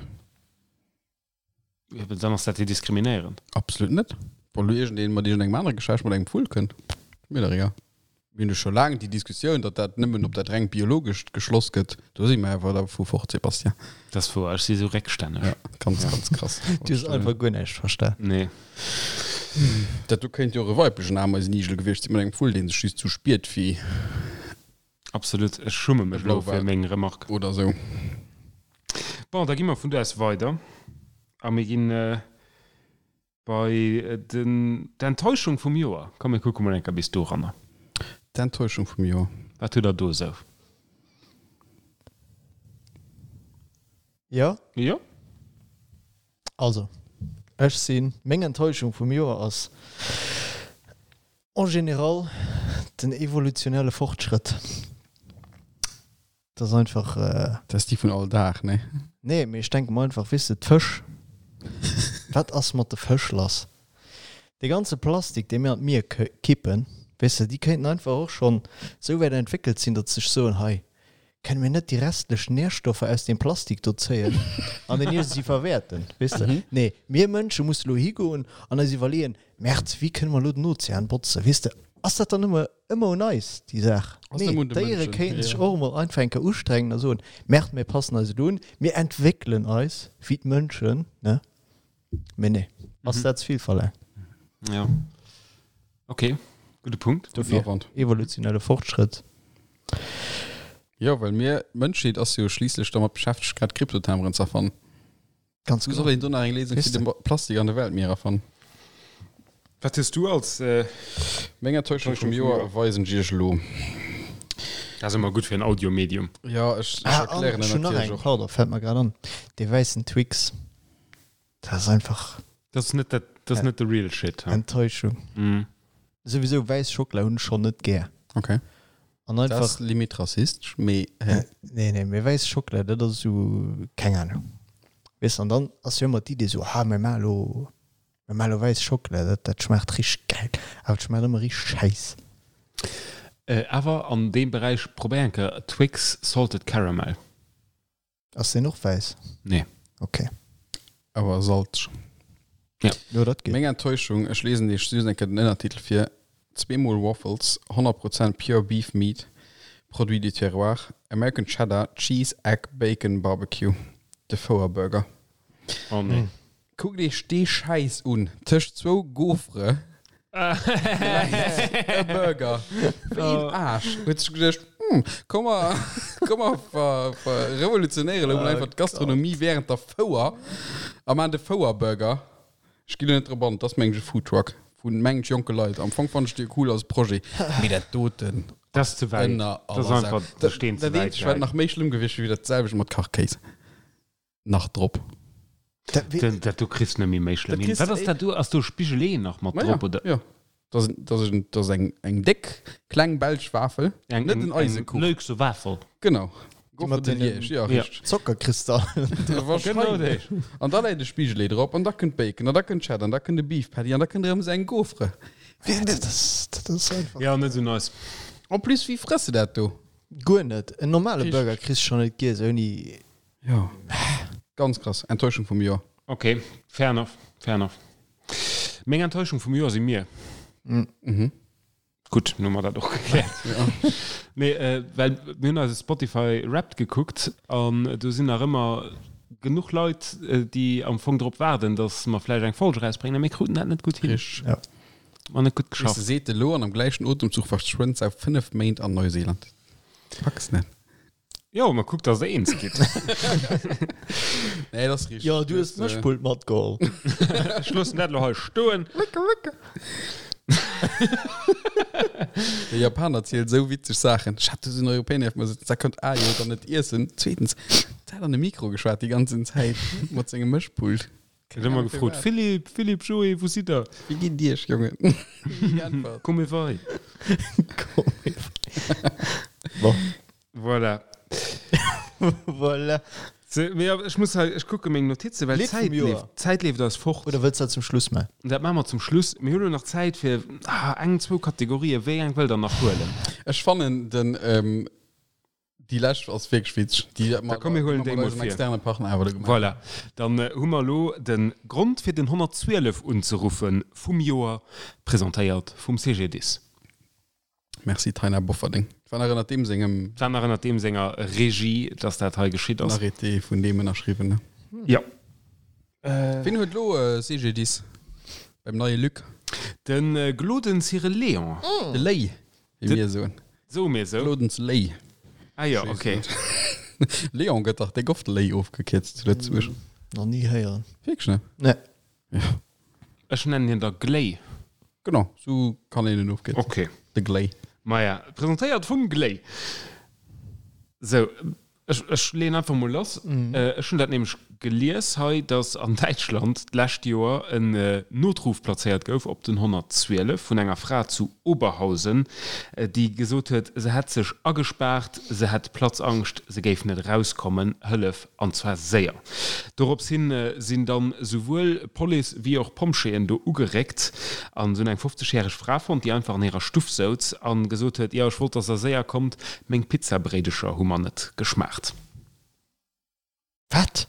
Jo, mä dann ass dat jo diskriminéierend. Absolut net. Wann elo iergendeen mat iergendengem anere Geschlecht mat engem Vull kënnt, mir dach egal. Mir hunn jo scho laang déi Diskussioun, datt dat nëmmen op dat rengt Biologescht geschloss gëtt. Do si mer awer dervu fort, Sébastien. Dat ass wouer, ech si sou réckstänneg. Ja, ganz, ganz krass. Du hues einfach guer näischt verstan. Nee. Dat do kéint jo och e weiblechen Ameisenigel gewiescht sinn mat engem Vull, dee sech just sou spiert wéi. Absolut, ech schumme mech elo fir meng Remarque. Oder sou. Bon, da gi mer vun do aus weider a mir ginn bei den d'Enttäuschung vum Joer. Komm mir kucke mol eng Kéier bis doranner. D'Enttäuschung vum Joer. Wat hutt der do esou? Jo? Jo. Also, ech sinn, meng Enttäuschung vum Joer ass en général den evolutionelle Fortschrëtt. Dat ass einfach. Dat ass déi vun all Dag, nee? Nee, mee ech denke mer einfach, weess de, d'Fësch, wat ass mat de Fësch lass? Dee ganze Plastik, dee mir an d'Mier kippen, weess de, déi kéinten einfach och schonn esou wäit entwéckelt sinn, datt se sech soen, hei, Kënne mir net déi restlech Nährstoffer aus deem Plastik do zéien an den iergendwéi verwäerten? Weess de? Nee, mir Mënsche musse lo higoen an eis iwwerleeën, Merd, wéi kënne mer lo den Ozean botzen? Weess de, ass dat dann ëmmer, ëmmer un eis, déi Saach? Ass Nee, nëmme un de d'Déiere Mënschen, kéinten sech jo. och emol einfach eng Kéier ustrengen a soen, Merd, mir passen eis elo un, mir entwéckelen eis wéi d'Mënschen, ne? Mee nee, ass dat ze vill verlaangt? Ja. Okay, gudde Punkt. Dofir, Awand. evolutionelle Fortschrëtt. Jo, well mir, d'Mënschheet ass jo schliisslech dermat beschäftegt, grad Kryptotameren ze erfannen. Ganz Wou genau. soll een do nach eng Léisung Weess fir de Plastik an de Weltmierer fannen? Wat hues du als. Äh, Meng Enttäuschung vum Joer weisen ech iech elo. Dat ass ëmmer gutt fir en Audiomedium. Ja, ech, ech Ah, an erklären ech en hunn nach natierlech eng, och. pardon, fält mer grad an. Dee wäissen Twix. Dat ass einfach. Dat ass net dat, dat ass net de real shit. Enttäuschung. Mm. Souwisou wäiss Schockela hunn ech schonn net gär. Okay. An einfach. Dat ass limit rassistesch, mee hä? Nee, nee, mee wäiss Schockela, dat ass esou, keng Ahnung. Weess, an dann ass jo ëmmer d'Idee esou, ah, mir maache lo, mir maache lo wäiss Schockela, dat, dat schmaacht richteg gäil. Awer et schmaacht ëmmer richteg schäiss. Awer an deem Beräich, probéier eng Kéier Twix Salted Caramel. Ass deen och wäiss? Nee. Ok. Awer salzeg. Ja. Jo, dat geet. Meng Enttäuschung, ech lesen iech just eng Kéier den Ënnertitel vir, Zweemol Waffles, 100 Prozent pure beef meat, produit du terroir, American Cheddar, Cheese, Egg, Bacon, Barbecue. De Fouerburger. Oh nee. Kuckt iech dee Schäiss un, tëscht zwou Gaufre läit e Burger. Wéi een Aarsch huet sech geduecht, Hm, komm mer, komm mer ver, ver revolutionéiere lo mol einfach d'Gastronomie während der Fouer a maachen de Fouer-Burger. Ech ginn elo net drop an, et ass mengen ech e Foodtruck vu mengen ech jonke Leit. Am Fong fannen ech dee cool als Projet, mee dat doten Dat ass ze wäit. ënner Dat ass aller Sau. einfach de Steen ze Dat wäit eenzegt wat gehäit. nach méi schlëmm gewiescht wier, wier dat selwecht mat Kachkéis. Nach drop. Dat, dat do kriss net méi méi schlëmm hin. Wat ass dat do? Ass do Spigelee nach mat drop oder? Jo, dat ass dat ass eng eng déck kleng belsch Wafel, eng, net en Eisekuch. Eng Luxe Wafel. Genau. Mat de Liège, ja, richteg. Zockerkristallen. Wahrscheinlech. An da läit e Spigelee drop an da kënnt Bacon an da kënnt Cheddar an da kënnt e Beef Patty an da kënnt erëm esou eng Gaufre. Dat ass, dat ass einfach. Ja, net esou nice. En plus, wéi frëss de dat do? Guer net. En normale Burger kriss de schonn net giess ouni. Jo, ganz krass. Enttäuschung vum Joer. Ok, fair enough, fair enough. Meng Enttäuschung vum Joer si mir. Mhm. Gutt, nun hu mer dat och gekläert. Nee, well mir hunn eise Spotify Wrapped gekuckt an do sinn nach ëmmer genuch Leit, déi am Fong drop waarden, datt mer vläicht eng Folg erausbréngen a mir kruten dat net gutt hin. Richteg. Ja. Mer net gutt Weess de, geschafft. seet elo an am gläichen Otemzuch verschwënnt se auf 5 Méint an Neuseeland. Packs net. Jo, ma kuck, dass der eens gitt. Nee, dat ass richteg. Jo, du hues d'Mëschpult matgeholl. Ech loossen dat elo hei stoen. De Japaner zielt esou witzeg Saachen. Ech hat do esou en Europäer nieft mer sëtzen, dat konnt A jo dann net iessen. Zweetens, dat hat an de Mikro geschwat déi ganzen Zäit mat sengem Mëschpult. Huet ëmmer gefrot, Philippe, Philippe, Joé, wou sidd der? Wéi geet et iech, Jongen? Ni geäntwert. Come vai? Come vai. Bon. Voilà. Voilà. Se, mee ja, ech muss hei, ech kucke meng Notizen, well Lidd vum d'Zäit Joer. leeft, d'Zäit leeft eis fort. Oder wëlls dat zum Schluss maachen? Dat maache mer zum Schluss. Mir hu lo nach Zäit fir ah, eng, zwou Kategorien. Wéi eng wëllt der nach huelen? Ech fannen den, ähm, déi lescht ass wierklech witzeg. Déi Da komm, mir huelen déi mol vir. externe Partner awer do gemaach. Voilà. Dann hu mer elo de Grond fir den 112 unzeruffe vum Joer, presentéiert vum CGDIS. Merci Taina Bofferding. War nach ënnert deem sengem. War nach ënnert deem senger Regie, dass dat hei geschitt ass. En Arrêté vun deem ënnerschriwwen, ne? Jo. Wien huet elo CGDIS beim neie Luc? De Gloden Cyril Léon. De Léi, wéi mir soen. Soe mir esou? Glodens Léi. Ah jo, ok. Léon gëtt dach déck oft Léi ofgekierzt zu Lëtzebuerg. Nach ni héieren. Wierklech net? Nee. Ja. Ech nennen hien da Gléi. Genau, sou kann een en ofkierzen. Ok. De Gléi. Maja, presentéiert vum Gléi. Sou, ech, ech leeën einfach mol lass. Ech hunn dat nämlech gelies hei, dass an Däitschland d'lescht Joer en Notruf plazéiert gouf op den 112 vun enger Fra zu Oberhausen, déi gesot huet, se hätt sech agespaart, se hätt Platzangscht, se géif net erauskommen, Hëllef! An zwar séier. Dorops hin sinn dann souwuel Police wéi och Pompjeeën do ugeréckt an se hunn eng 50 järeg Fra fonnt, déi einfach an hirer Stuff souz an gesot huet, Jo, ech wollt, dass der séier kommt, meng Pizzabréidecher hu mer net geschmaacht. Wat?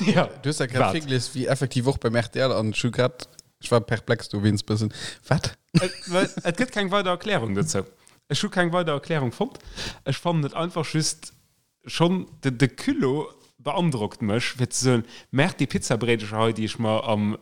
Jo, Du hues dat grad wat? virgelies wéi effektiv och beim rtl an ech hu grad, ech war perplex dowéinst bëssen. Wat? Et gëtt keng weider Erklärung dozou. Ech hu keng weider Erklärung fonnt. Ech fannen et einfach just Schonn de Culot beandrockt mech, fir ze soen, Merk, déi Pizzabréidecher hei, déi ech mer am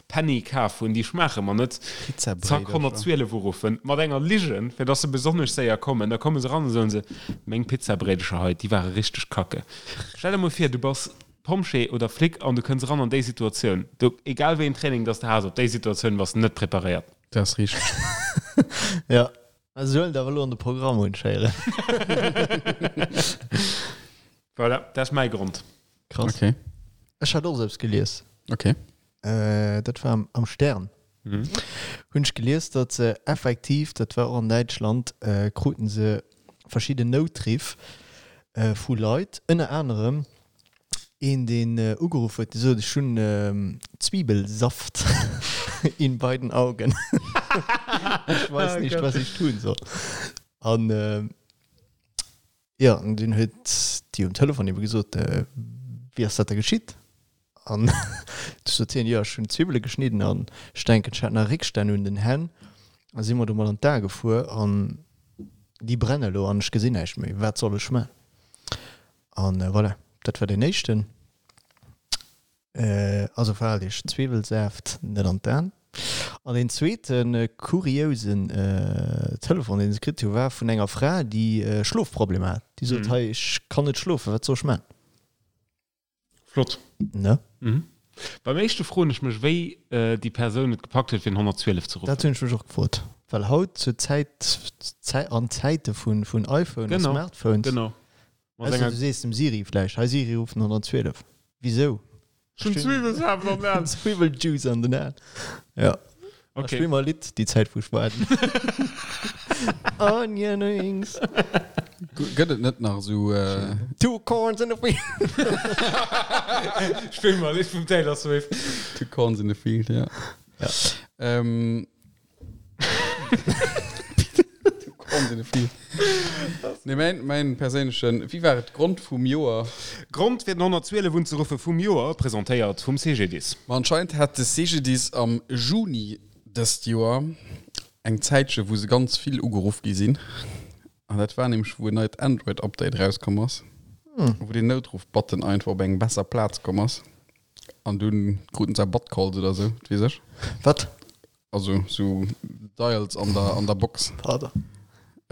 Penny kaf hunn, déi schmaache mer net. Zack, 112 uruffen, mat enger Ligen, fir dass se besonnesch séier kommen. Da komme se eran a soen se, Meng Pizzabréidecher hei, déi ware richteg kacke. Stell der mol vir, du bass Pompjee oder Flic an du kënns eran an déi Situatioun. Do, egal wéi een Training dass de has, op déi Situatioun bass de net preparéiert. Dat ass richteg. Jo. Mä se huelen et awer elo an de Programm un, schéieren. Voilà, dat ass mäi Grond. Krass. Okay. Ech hat och eppes gelies. Okay. Dat war am Stern. Hunn ech gelies, datt se effektiv, dat war och an Däitschland, kruten se verschidden Noutriff vu Leit, ënner anerem een deen ugeruff huet, dee sot, ech hunn Zwiebelsaft in beiden Augen, ich weiß nicht, was ich tun soll. An jo, an dunn huet déi um Telefon ebe gesot, wéi ass dat da geschitt? An du sot hien, jo ech hunn Zwiwwele geschnidden an ech denken ech hat nach Réckstänn un den Hänn a si mer domat an d'Ae gefuer an déi brenne lo an ech gesinn näischt méi, wat soll ech man? An voilà, dat war deen éischten. Also verhaalt iech, Zwiwwelsaaft net an d'Aen. An deen zweete kuriousen Telefon deen se kritt hu war vun enger Fra déi Schlofproblemer hat. Déi sot, hei ech kann net schlofen, wat soll ech man? Flott. Ne? Mhm. Beim éischte froen ech mech, wéi déi Persoun et gepackt huet, fir den 112 ze ruffen. Dat hunn ech mech och gefrot. Well haut zur Zäit, an Zäite vun, vun iPhone a Genau, Smartphones. genau. Mat Ausser enger. du sees dem Siri vläicht, Hei Siri, ruff den 112. Wisou? Ech hunn Zwiwwelsaaft an den Aen. Zwiwweljuice an den Aen. Ja. Okay. Spill mer e Lidd, déi Zäit wou ech waarden. Onion rings. Gëtt et net nach esou. Two corns in a field. Spill mer e Lidd vum Taylor Swift. Two corns in a field, ja. Ja. Ähm. Two corns in a field. Nee, mäin, mäin perséinlechen, wéi war et, Grond vum Joer? Grond fir den 112 unzeruffe vum Joer, presentéiert vum CGDIS. Ma anscheinend hat de CGDIS am Juni dëst Joer eng Zäitche wou se ganz vill ugeruff gi sinn. An dat war nämlech wou en neit Android-Update erauskomm ass, wou den Noutruff-Button einfach op eng besser Plaz komm ass. An dunn kruten se Butt-Calls oder sou, wat weess ech. Wat? Also sou Dials an der, an der Box. Pardon.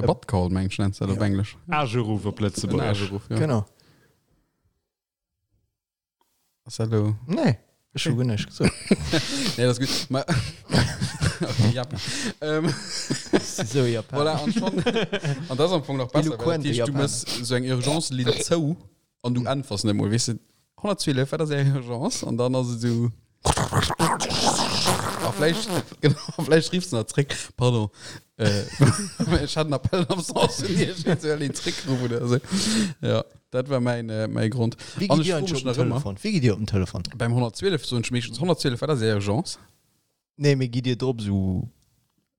E Butt Call, meng ech, nennt se dat op Englesch. Ageruff op En Lëtzebuergesch. Ageruff, ja. Genau. Ass dat elo. Nee, ech hu guer näischt gesot. Nee, dat ass gutt. Ma okay, Japan. Ähm, Sou Japan. voilà, an schon. An dat ass am Fong nach besser, well dat Eloquente heescht, du Japaner. mëss sou eng Urgence-Linn zou An du äntwers net mol, weess de, 112, wat ass är Urgence? An dann ass et esou. A vläicht, genau, a vläicht riffs de nach zréck, Pardon, äh, ech hat en Appel d'absence vun Iech, ech soll een zréckruffen oder esou. Ja, dat war mäin, äh, mäi Grond. Wéi An gitt ech Dir froe eigentlech mech op den nach ëmmer, Telefon? Wéi gitt Dir op den Telefon? beim 112 soen ech meeschtens 112, wat ass är Urgence? Nee, mee gitt Dir drop esou,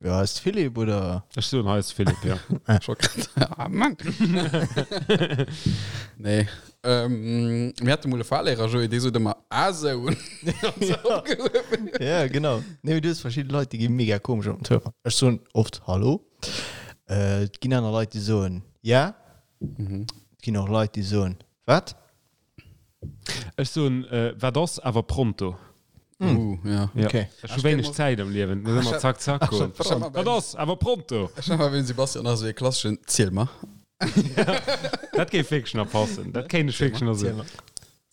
jo, hei ass de Philippe, oder? Ech soen, hei ass de Philippe, jo. Ech wollt grad, ah Mann! Nee, ähm, mir hate mol e Fahrlehrer, Joé, dee sot ëmmer, ah sou! Ja, genau. Nee, mee du hues verschidde Leit, déi gi mega komesch op den Telefon. Ech soen oft Hallo. Äh, et ginn aner Leit, déi soen ja. Et ginn och Leit, déi soen wat? Ech soen, wat ass, awer pronto. Uh, ja. Ja. Okay. Ech hu wéineg Zäit am Liewen, muss ëmmer zack zack goen. Wat ass, awer pronto. Ech hat mal beim Sebastian nach esou ee klasseschen Ziel mer. Dat géif wierklech nach passen. Dat kéint ech wierklech nach soen.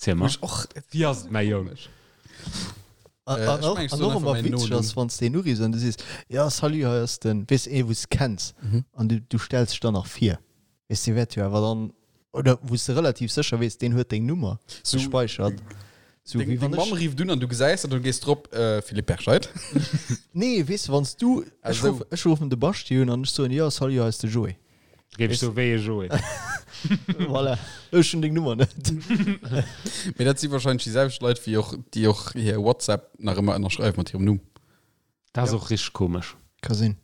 Ziel mer. Och, Wéi ass et, mäi Jong? An, Äh, an ech och, mengen, ech an soen och einfach ëmmer mäin witzeg Nonumm. ass, wann s de een uriffs an du sees, ja, salut, hei ass den, weess, ee wou s kenns, an du, du stells dech dann nach vir. Weess, dee wäert jo awer dann, oder wou s de relativ sécher weess, deen huet deng Nummer So- gespäichert. Sou Deng, wéi deng wann Mamm ech. rifft un an du gesäis dat an du gees drop, äh, Philippe Perscheid. Nee, weess de, wann s du, Ah, ech sou. ruff, ech ruffen de Baschi un an ech soen, jo, salut, hei ass de Joé. Géif ech soen, wéi e Joé? Voilà, ech hunn deng Nummer net. Mee dat si wahrscheinlech déi selwecht Leit, wéi och, déi och hir WhatsApp nach ëmmer ënnerschreiwe mat hirem Numm. Dat ass och richteg komesch. Ka sinn.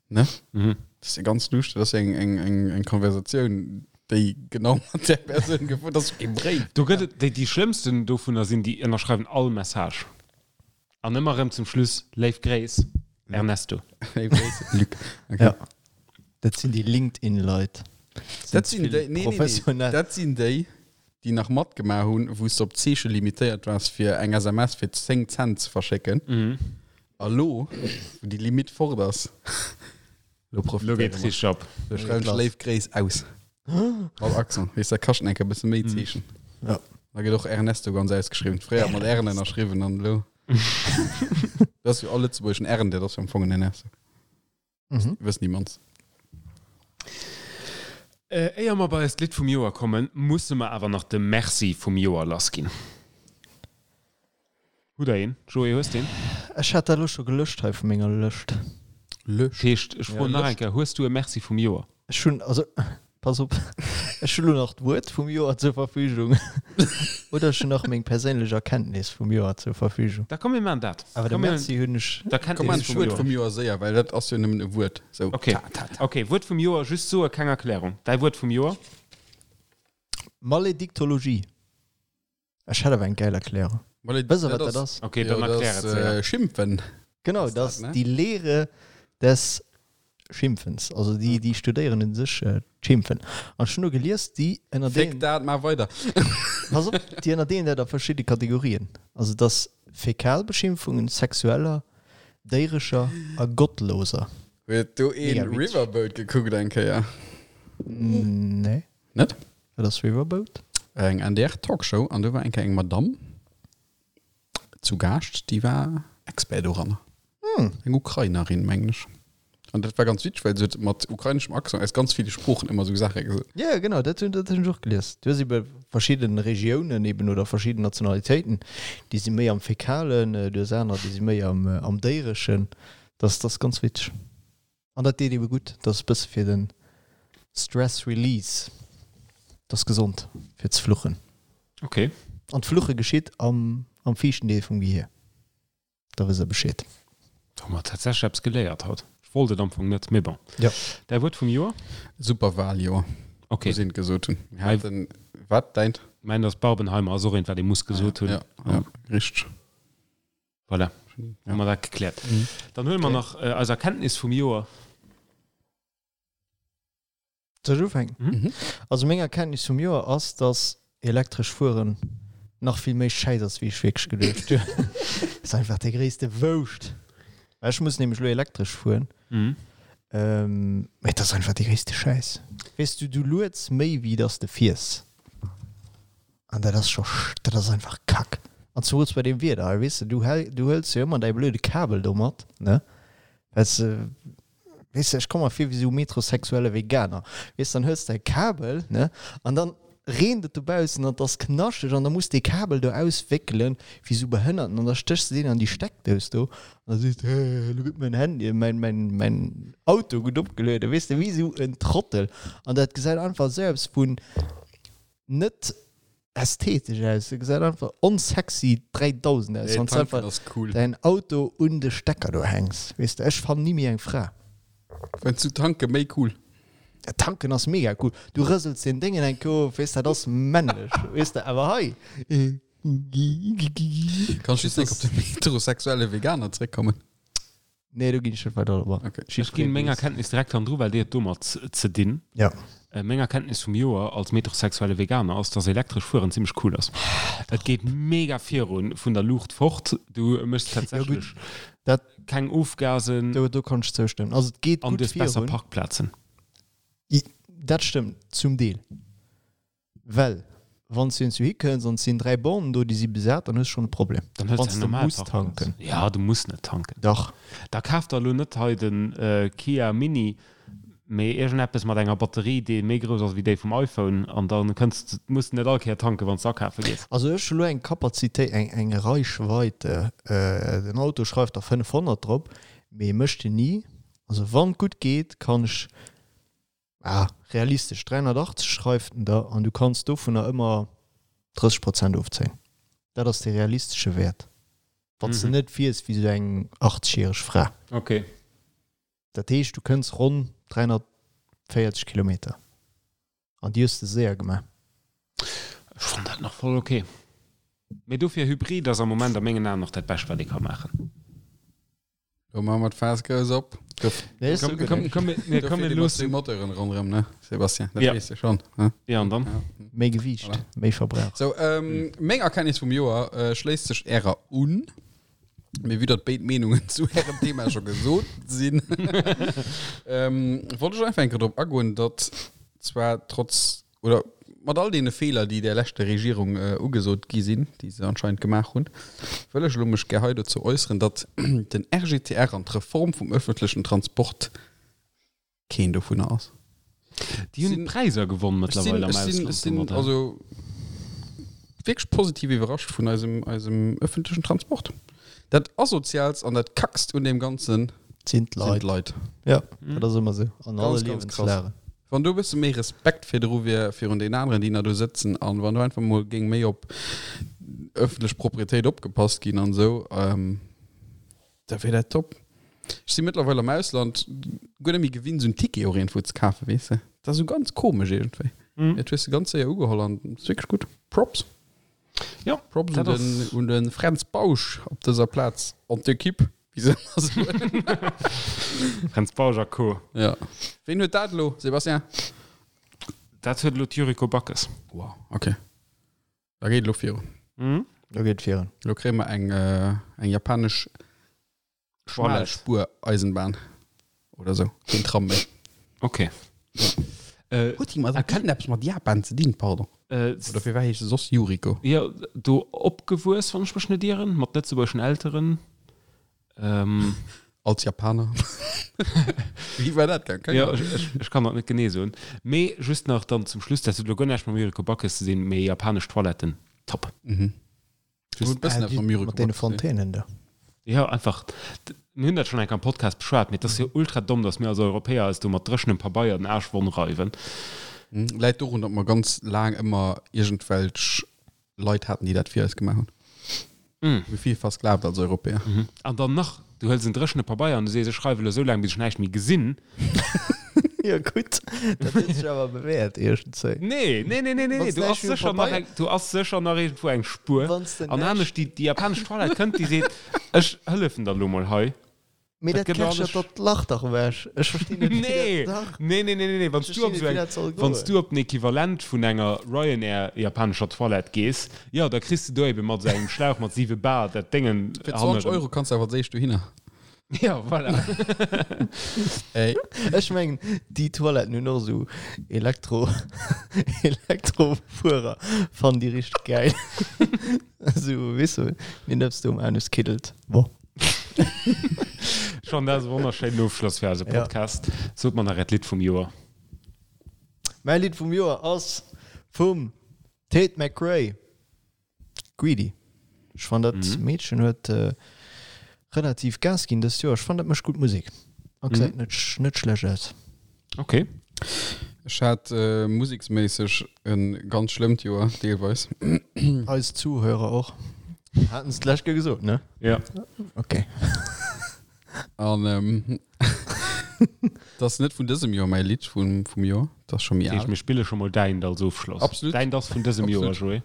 Ne? Mhm. Dat ass jo ganz luuscht, dat ass jo eng, eng, eng, eng Konversatioun, déi genau mat där Persoun gefouert, dat ass kee Bréif. Do gëtt et, déi, déi schlëmmsten dovunner sinn, déi ënnerschreiwen all Message. An ëmmer erëm zum Schluss, Léif Gréiss, Ernesto. Léif Gréiss, Luc. Okay. Ja. Dat sinn déi LinkedIn-Leit. Dat sinn déi, nee, nee, nee, Professionell. dat sinn déi, déi nach matgemaach hunn, wou s de op d'Zeeche limitéiert waars, fir eng SMS fir 10 Cent ze verschécken. A lo, wou déi Limite fort ass, lo Lo profitéiere geet mer. richteg ab. Lo schreiwen ech Léif Gréiss aus. Mat Accent. Weess, dat kascht enker e bësse méi Zeechen. Ja. Da gëtt och Ernesto ganz ausgeschriwwen. Fréier mat R'en ënnerschriwwen an elo. Dat ass jo all lëtzebuergeschen R'en, dat ass jo am Fong en Ernesto. Mhm. Wëssen déi mannst. Äh, éier mer bei eist Lidd vum Joer kommen, musse mer awer nach de Merci vum Joer lassginn. Hutt der een? Joé, hues de een? Ech hat dat elo scho gelöscht hei vu menger Lëscht. Lëscht? Heescht, ech froen nach eng Kéier, Hues du e Merci vum Joer? Ech hunn, also, pass op, ech hu lo nach d'Wuert vum Joer zur Verfügung oder ech hunn nach meng perséinlech Erkenntnis vum Joer zur Verfügung. Da komm mir maachen dat. Awer de Merci hunn ech. Komm maachen d'Wuert vum Joer séier, well dat ass jo nëmmen e Wuert. Sou, Okay, ta, ta, ta. okay, Wuert vum Joer, just soe, keng Erklärung. Däi Wuert vum Joer? Malediktologie. Ech hätt awer eng gäil Erklärung. Wësst der, wat dat ass? Okay, dann erklär et séier. Schimpfen. Genau, dat ass déi Lehre des Schimpfens. Also déi, déi studéieren u sech d'Schimpfen. An ech hunn do gelies, déi ënnerdeelen. Féck dat, maach weider. Pass op, déi ënnerdeelen dat a verschidde Kategorien. Also et ass Fäkalbeschimpfungen, sexueller, déirescher a gottloser. Huet do een Riverboat gekuckt eng Kéier? Nee. Net? Wat ass Riverboat? Eng NDR Talkshow an do war eng Kéier eng Madamm zu Gaascht, déi war Expert doranner. Hm. Eng Ukrainerin, mengen ech. An dat war ganz witzeg, well se huet mat ukraineschem Accent aus ganz ville Sproochen ëmmer esou Saache gesot. Ja, genau, dat hunn dat hunn ech och gelies. Du hues ebe verschidde Regiounen eben oder verschidden Nationalitéiten, déi si méi am Fäkalen, du hues aner, déi si méi am am Déireschen. Dat ass ganz witzeg. An dat deet ebe gutt, dat ass e bësse fir den Stress Release, dat ass gesond fir ze fluchen. Ok. An d'Fluche geschitt am am viischten Deel vum Gehier, da wësst der Bescheed. Do hu mer tatsächlech eppes geléiert haut. Ech wollt et am Fong net, mee bon. Jo. Däi Wuert vum Joer? Superwahljoer, Ok. muss een gesot hunn. Mir haten, wat, däint? Mäint ass Barbenheimer, ass och eent, wat ee muss gesot hunn. Ja, ja, richteg. Voilà, hu mer dat gekläert. Dann huele mer nach eis Erkenntnis vum Joer. Soll ech ufänken? Mhm. Also meng Erkenntnis vum Joer ass, dass elektresch Fueren nach vill méi schäiss ass, wéi ech wierklech geduecht hunn. Ass einfach dee gréisste Wouscht. Well ech muss nämlech elo elektresch fueren. Mhm. Mee et ass einfach dee gréisste Schäiss. Weess du, du lueds méi wéi dass de fiers. An dat ass scho, dat ass einfach Kack. An zumools bei deem Wieder hei, weess de, du häl, du hëls jo ëmmer däi blöde Kabel do mat, ne? Well s de, weess de, ech komm mer vir wéi esou metrosexuelle Veganer, weess de, dann hëls de däi Kabel, ne? An dann reent et dobaussen an et ass knaschteg an da muss dee Kabel do auswéckelen wéi esou Behënnerten an da stéchs de deen an déi Steckdous do an da sees de, elo gëtt mäin Handy, mäin, mäin, mäin Auto gutt opgelueden, weess de, wéi esou en Trottel. An dat gesäit einfach esou eppes vun net ästhetesch aus, se gesäit einfach onsexy 3000 aus, wann s einfach cool. däin Auto un de Stecker do hänks, weess de. Ech fannen ni méi eng Fra. Fënns du tanke méi cool? Ja, tanken ass mega cool, du rësels den Déngen eng Kéier of, weess, dat ass männlech, weess de, awer hei. Kann ech just eng Kéier op den heterosexuelle Veganer zréckkommen? Nee, do ginn ech net weider drop an. Okay. Ech ginn meng Erkenntnis direkt hannendru, well déi huet domat ze dinn. Ja. Meng Erkenntnis vum Joer als metrosexuelle Veganer ass, dass elektresch fueren zimmlech cool ass. Et geet mega virun, vun der Luucht fort. Du méchs tatsächlech Dat, keng Ofgasen do, do kann ech zoustëmmen. Also et geet an du gutt hues besser virun. Parkplazen. Dat stëmmt zum Deel. Well wann s du iergendwou hikënns an et sinn 3 Bornen do, déi si besat, dann hues du schonn e Problem. Dann hues Wann du s eng de normal muss Parkplaz. tanken. Ja, du muss net tanken. Dach. Da kaf der elo net hei den Kia Mini, mee iergendeppes mat enger Batterie, déi méi grouss ass wéi déi vum iPhone an da kënns de, muss de net all Kéier tanken, wann s de akafe gees. Also ech hu lo eng Kapazitéit, eng eng Reichweite, den Auto schreift der 500 drop, mee mécht en ni. Also wann et gutt geet, kann ech Ah, realistesch 380 schreift en der an du kanns dovunner ëmmer 30 Prozent ofzéien. Dat ass de realistesche Wäert, wann s de net fiers wéi sou eng 80 järeg Fra. Ok. Dat heescht, du kënns ronn 340 Kilometer an déi hues de séier gemaach. Ech fannen dat nach voll ok. Mee dofir Hybrid ass am Moment a mengen Aen nach dat Bescht wat ee ka maachen. Lo maache mer d'Faass grouss op. Nee, ist Komm, okay. komm, komm, mir, komm, mir loossen. Moteuren ronderëm, ne, Sébastien? Dat Ja. weess de schon. Ne? Ja, an dann? Méi Gewiicht, Voilà. méi Verbrauch. So, ähm, meng Erkenntnis vum Joer äh, schléisst sech ärer un. Mee vue datt béid Meenungen zu ärem Thema scho gesot sinn, ähm, wollt ech einfach eng Kéier drop agoen, datt zwar trotz oder mat all deene Feeler, déi där leschter Regierung ugesot gi sinn, déi se anscheinend gemaach hunn, wëll ech elo mech gär hei dozou äusseren, datt den RGTR an d'Reform vum öffentlechen Transport keen dovunner ass. Déi hunn Präiser gewonn mëttlerweil am Ech sinn, Ausland ech sinn, domadder. also. wierklech positiv iwwerrascht vun eisem, eisem ëffentlechen Transport. Dat Asoziaalst an dat Kackst un deem Ganzen Sinn d'Leit. sinn d'Leit. Ja, dat ass ëmmer esou an alle Ganz, ganz krass. Liewenslagen. Wann do e bësse méi Respekt virdru wier, virun den aneren, déi nach do sëtzen, an wann do einfach mol géing méi op ëffentlech Proprietéit opgepasst ginn an esou, da wier dat top. Ech si mëttlerweil am Ausland guer net méi gewinnt, esou en Ticket och iergendwou ze kafen, weess de. Dat ass esou ganz komesch iergendwéi. Dat hues de ganz séier ugeholl an ass wierklech gutt. Props. Jo, Props un dat den, ass. un de Fränz Bausch op dëser Plaz an d'Equipe, wéi se ëmmer soen. Fränz Bausch a Co. Ja. Ween huet dat elo, Sébastien? Dat huet elo d'Yuriko Backes. Wow, okay. Da geet elo virun. Mhm. Lo geet virun. Elo kréie mer eng, eng japanesch Schmalspureisenbahn oder sou. Keen Tram méi. Okay. Äh, Huet déi mat eppes mat Japan ze dinn, pardon? Äh, Oder firwat heescht se soss Yuriko? Jo, do opgewuess, wann ech mech net ieren, mat lëtzebuergeschen Elteren. Ähm. Als Japaner. Wéi war dat gaang? Jo, ech, ech, ech kann dat net genee soen. Mee just nach dann zum Schluss, dat huet elo guer näischt mam Yuriko Backes ze dinn, mee japanesch Toiletten, top. Mhm. Just, Huet e bëssen Ah, eppes mam Yuriko mat deene Backes ze dinn. Fontänen do. Jo, einfach, mir hunn dat schonn eng Kéier am Podcast beschwat, mee et ass jo ultra domm, datt mir als Europäer eis do mat dréchenem Pabeier den Aarsch wonn reiwen. Läit dorun, datt mer ganz laang ëmmer iergendwelch Leit haten, déi dat fir eis gemaach hunn. Mm. Mir vill versklavt als Europäer. Mhm. An dann nach, du hëls en dréchene Pabeier an du sees, ech schreiwe elo esou laang, bis ech näischt méi gesinn. Jo gutt, dat huet sech awer bewäert iergendzwéi. Nee, nee, nee, nee, nee, Wanns do näischt ass méi um sécher nach Pabeier. eng, do ass sécher nach iergendwou eng Spuer. Wanns de An näischt. anescht, déi, déi japanesch Toilette kënnt, déi seet, ech hëllefen der elo mol hei. Mee Dat dat gëtt alles. kerchert dat Lach dach ewech. Ech verstinn net, wéi Nee, dat dach. nee, nee, nee, nee, nee. Wann Ech du op verstinn so net, wéi eng, dat soll wann goen. du op den Equivalent vun enger Ryanair japanescher Toilette gees, jo, da kriss du do ebe mat sou engem Schlauch mat 7 Bar dat Déngen Fir 20 hannerem. Euro kanns du awer als éischt dohinner. Ja, voilà. Ey. Ech mengen, déi Toiletten hunn och esou Elektro, Elektrofuerer, fannen déi richteg gäil. Esou, weess du, deen eppes do um Anus kiddelt. Bon. Schon dat ass e wonnerschéinen Ofschloss fir eise Ja. Podcast. Sot mer nach äert Lidd vum Joer. Mäi Lidd vum Joer ass vum Tate McRae, Greedy. Ech fannen dat Mhm. Meedchen huet relativ Gas ginn dëst Joer. Ech fannen dat mécht gutt Musek a gesäit net net schlecht aus. Okay. Ech hat museksméisseg e ganz schlëmmt Joer, deelweis. Eis Zuhörer och. Haten se d'lescht Kéier gesot, ne? Ja. Okay. An ähm, dat ass net vun dësem Joer mäi Lidd vum, vum Joer, dat ass scho méi Dat heescht, al. mir spille scho mol däint als Ofschloss. Absolut. Däint ass vun dësem Joer, Absolut. Joé.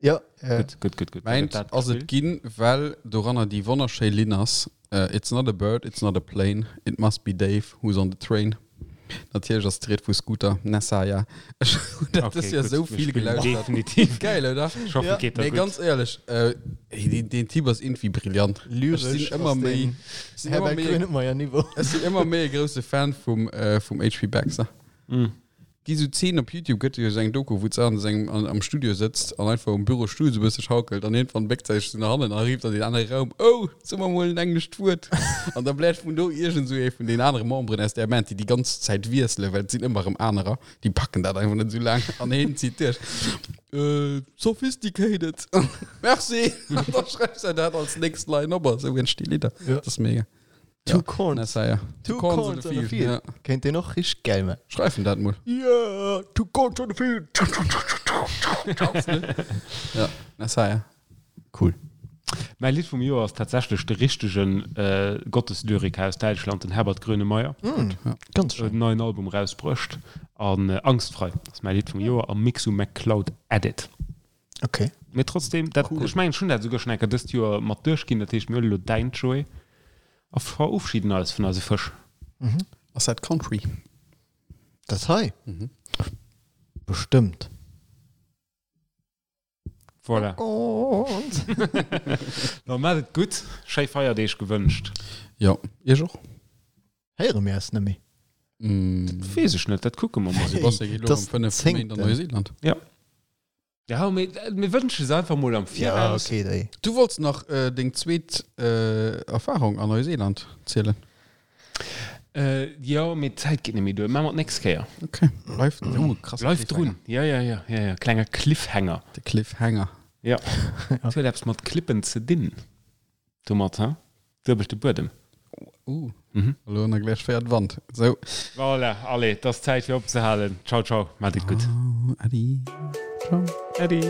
Ja, äh, Gutt, gutt, gutt, gutt. Da Mäint gëtt dat ass et gespillt. ginn, well doranner déi wonnerschéi Linn ass, äh, It's not a bird, it's not a plane, it must be Dave who's on the train. Natierlech ass d'Ried vu Scooter, Nessaya. Ech hunn dat Okay, dës Joer gutt, esou mir vill spillen gelauschtert. Definitiv. Geil, oder? Ich hoffe, Ja. et geet der Nee, gutt. ganz éierlech, äh, ey, deen, deen Typ ass irgendwie brillant. Ech lyresch sinn ëmmer ass méi, den ech sinn ëmmer Herbert méi, Grönemeyer Niveau. ech sinn ëmmer méi e grousse Fan vum, äh, vum HP Baxter. Mm. Gi sou Zeen op Youtube, gëtt jo sou eng Doku, wou d'Sarah an sengem, an, am Studio sëtzt an einfach um Bürostull sou e bësse schaukelt an iergendwann béckt se sech sou no hannen a rifft an deen anere Raum, Oh, so mer mol en englescht Wuert! An da bläert vun do iergend sou ee vun den anere Memberen aus där Band, déi déi ganz Zäit wiesselen, well et sinn ëmmer erëm anerer, déi packen dat einfach net sou laang an heen zitt duerch, Äh, sophisticated! Merci! An da schreift se dat als nächst Line op a sou entsti Lidder. Ja. Dat ass mega. Two Ja. Corns. Nessaya. Two Corns on a Field. Ja. Kéint deen och richteg gäil man. Schreifen dat mol. Yeah, two corns on the field. Ja, Nessaya. Cool. Mäi Lidd vum Joer ass tatsächlech de richtegen äh, Gotteslyriker aus Däitschland, den Herbert Grönemeyer. Mm, Ja. ganz Huet schön. en neien Album rausbruecht an äh, Angstfrei ass mäi Lidd vum Joer am Mixu McCloud Edit. Okay. Mee trotzdem, dat, Cool. ech mengen, ech hunn dat souguer schonn eng Kéier dëst Joer mat duerchginn, dat heescht, mir huele lo däint, Joé, a verofschieden eis vun eise Fësch. Mhm. Ass dat Country? Dat hei? Mhm. Bestëmmt. Voilà. Gott. Da maacht et gutt, schéi Feierdeeg gewënscht. Jo, iech och. Héiere mir eis net méi. Mm. Weess ech net, dat kucke mer mol. Sebastian geet lo Das am 5 Méint an zéngten. Neuseeland. Ja, mee mir wënsche se einfach mol am Ja, Viraus. okay, déi. Du wollts nach äh, deng zweet äh, Erfahrung an Neuseeland zielen. Äh, jo, mee d'Zäit geet net méi duer. Maache mer d'nächst Kéier. Okay. Bleift, oh, krass. Bleift drun. Ja, ja, ja, ja, ja. Klenger Cliffhanger. De Cliffhanger. Ja. Et huet eppes mat Clippen ze dinn. Domat, ha? Duebelte Buedem. Uh, mhm. Elo nach gläich féiert Wand. Sou. Voilà, allez, et ass Zäit fir opzehalen. Ciao, ciao, maacht et gutt. Oh, Äddi. Ciao. Äddi.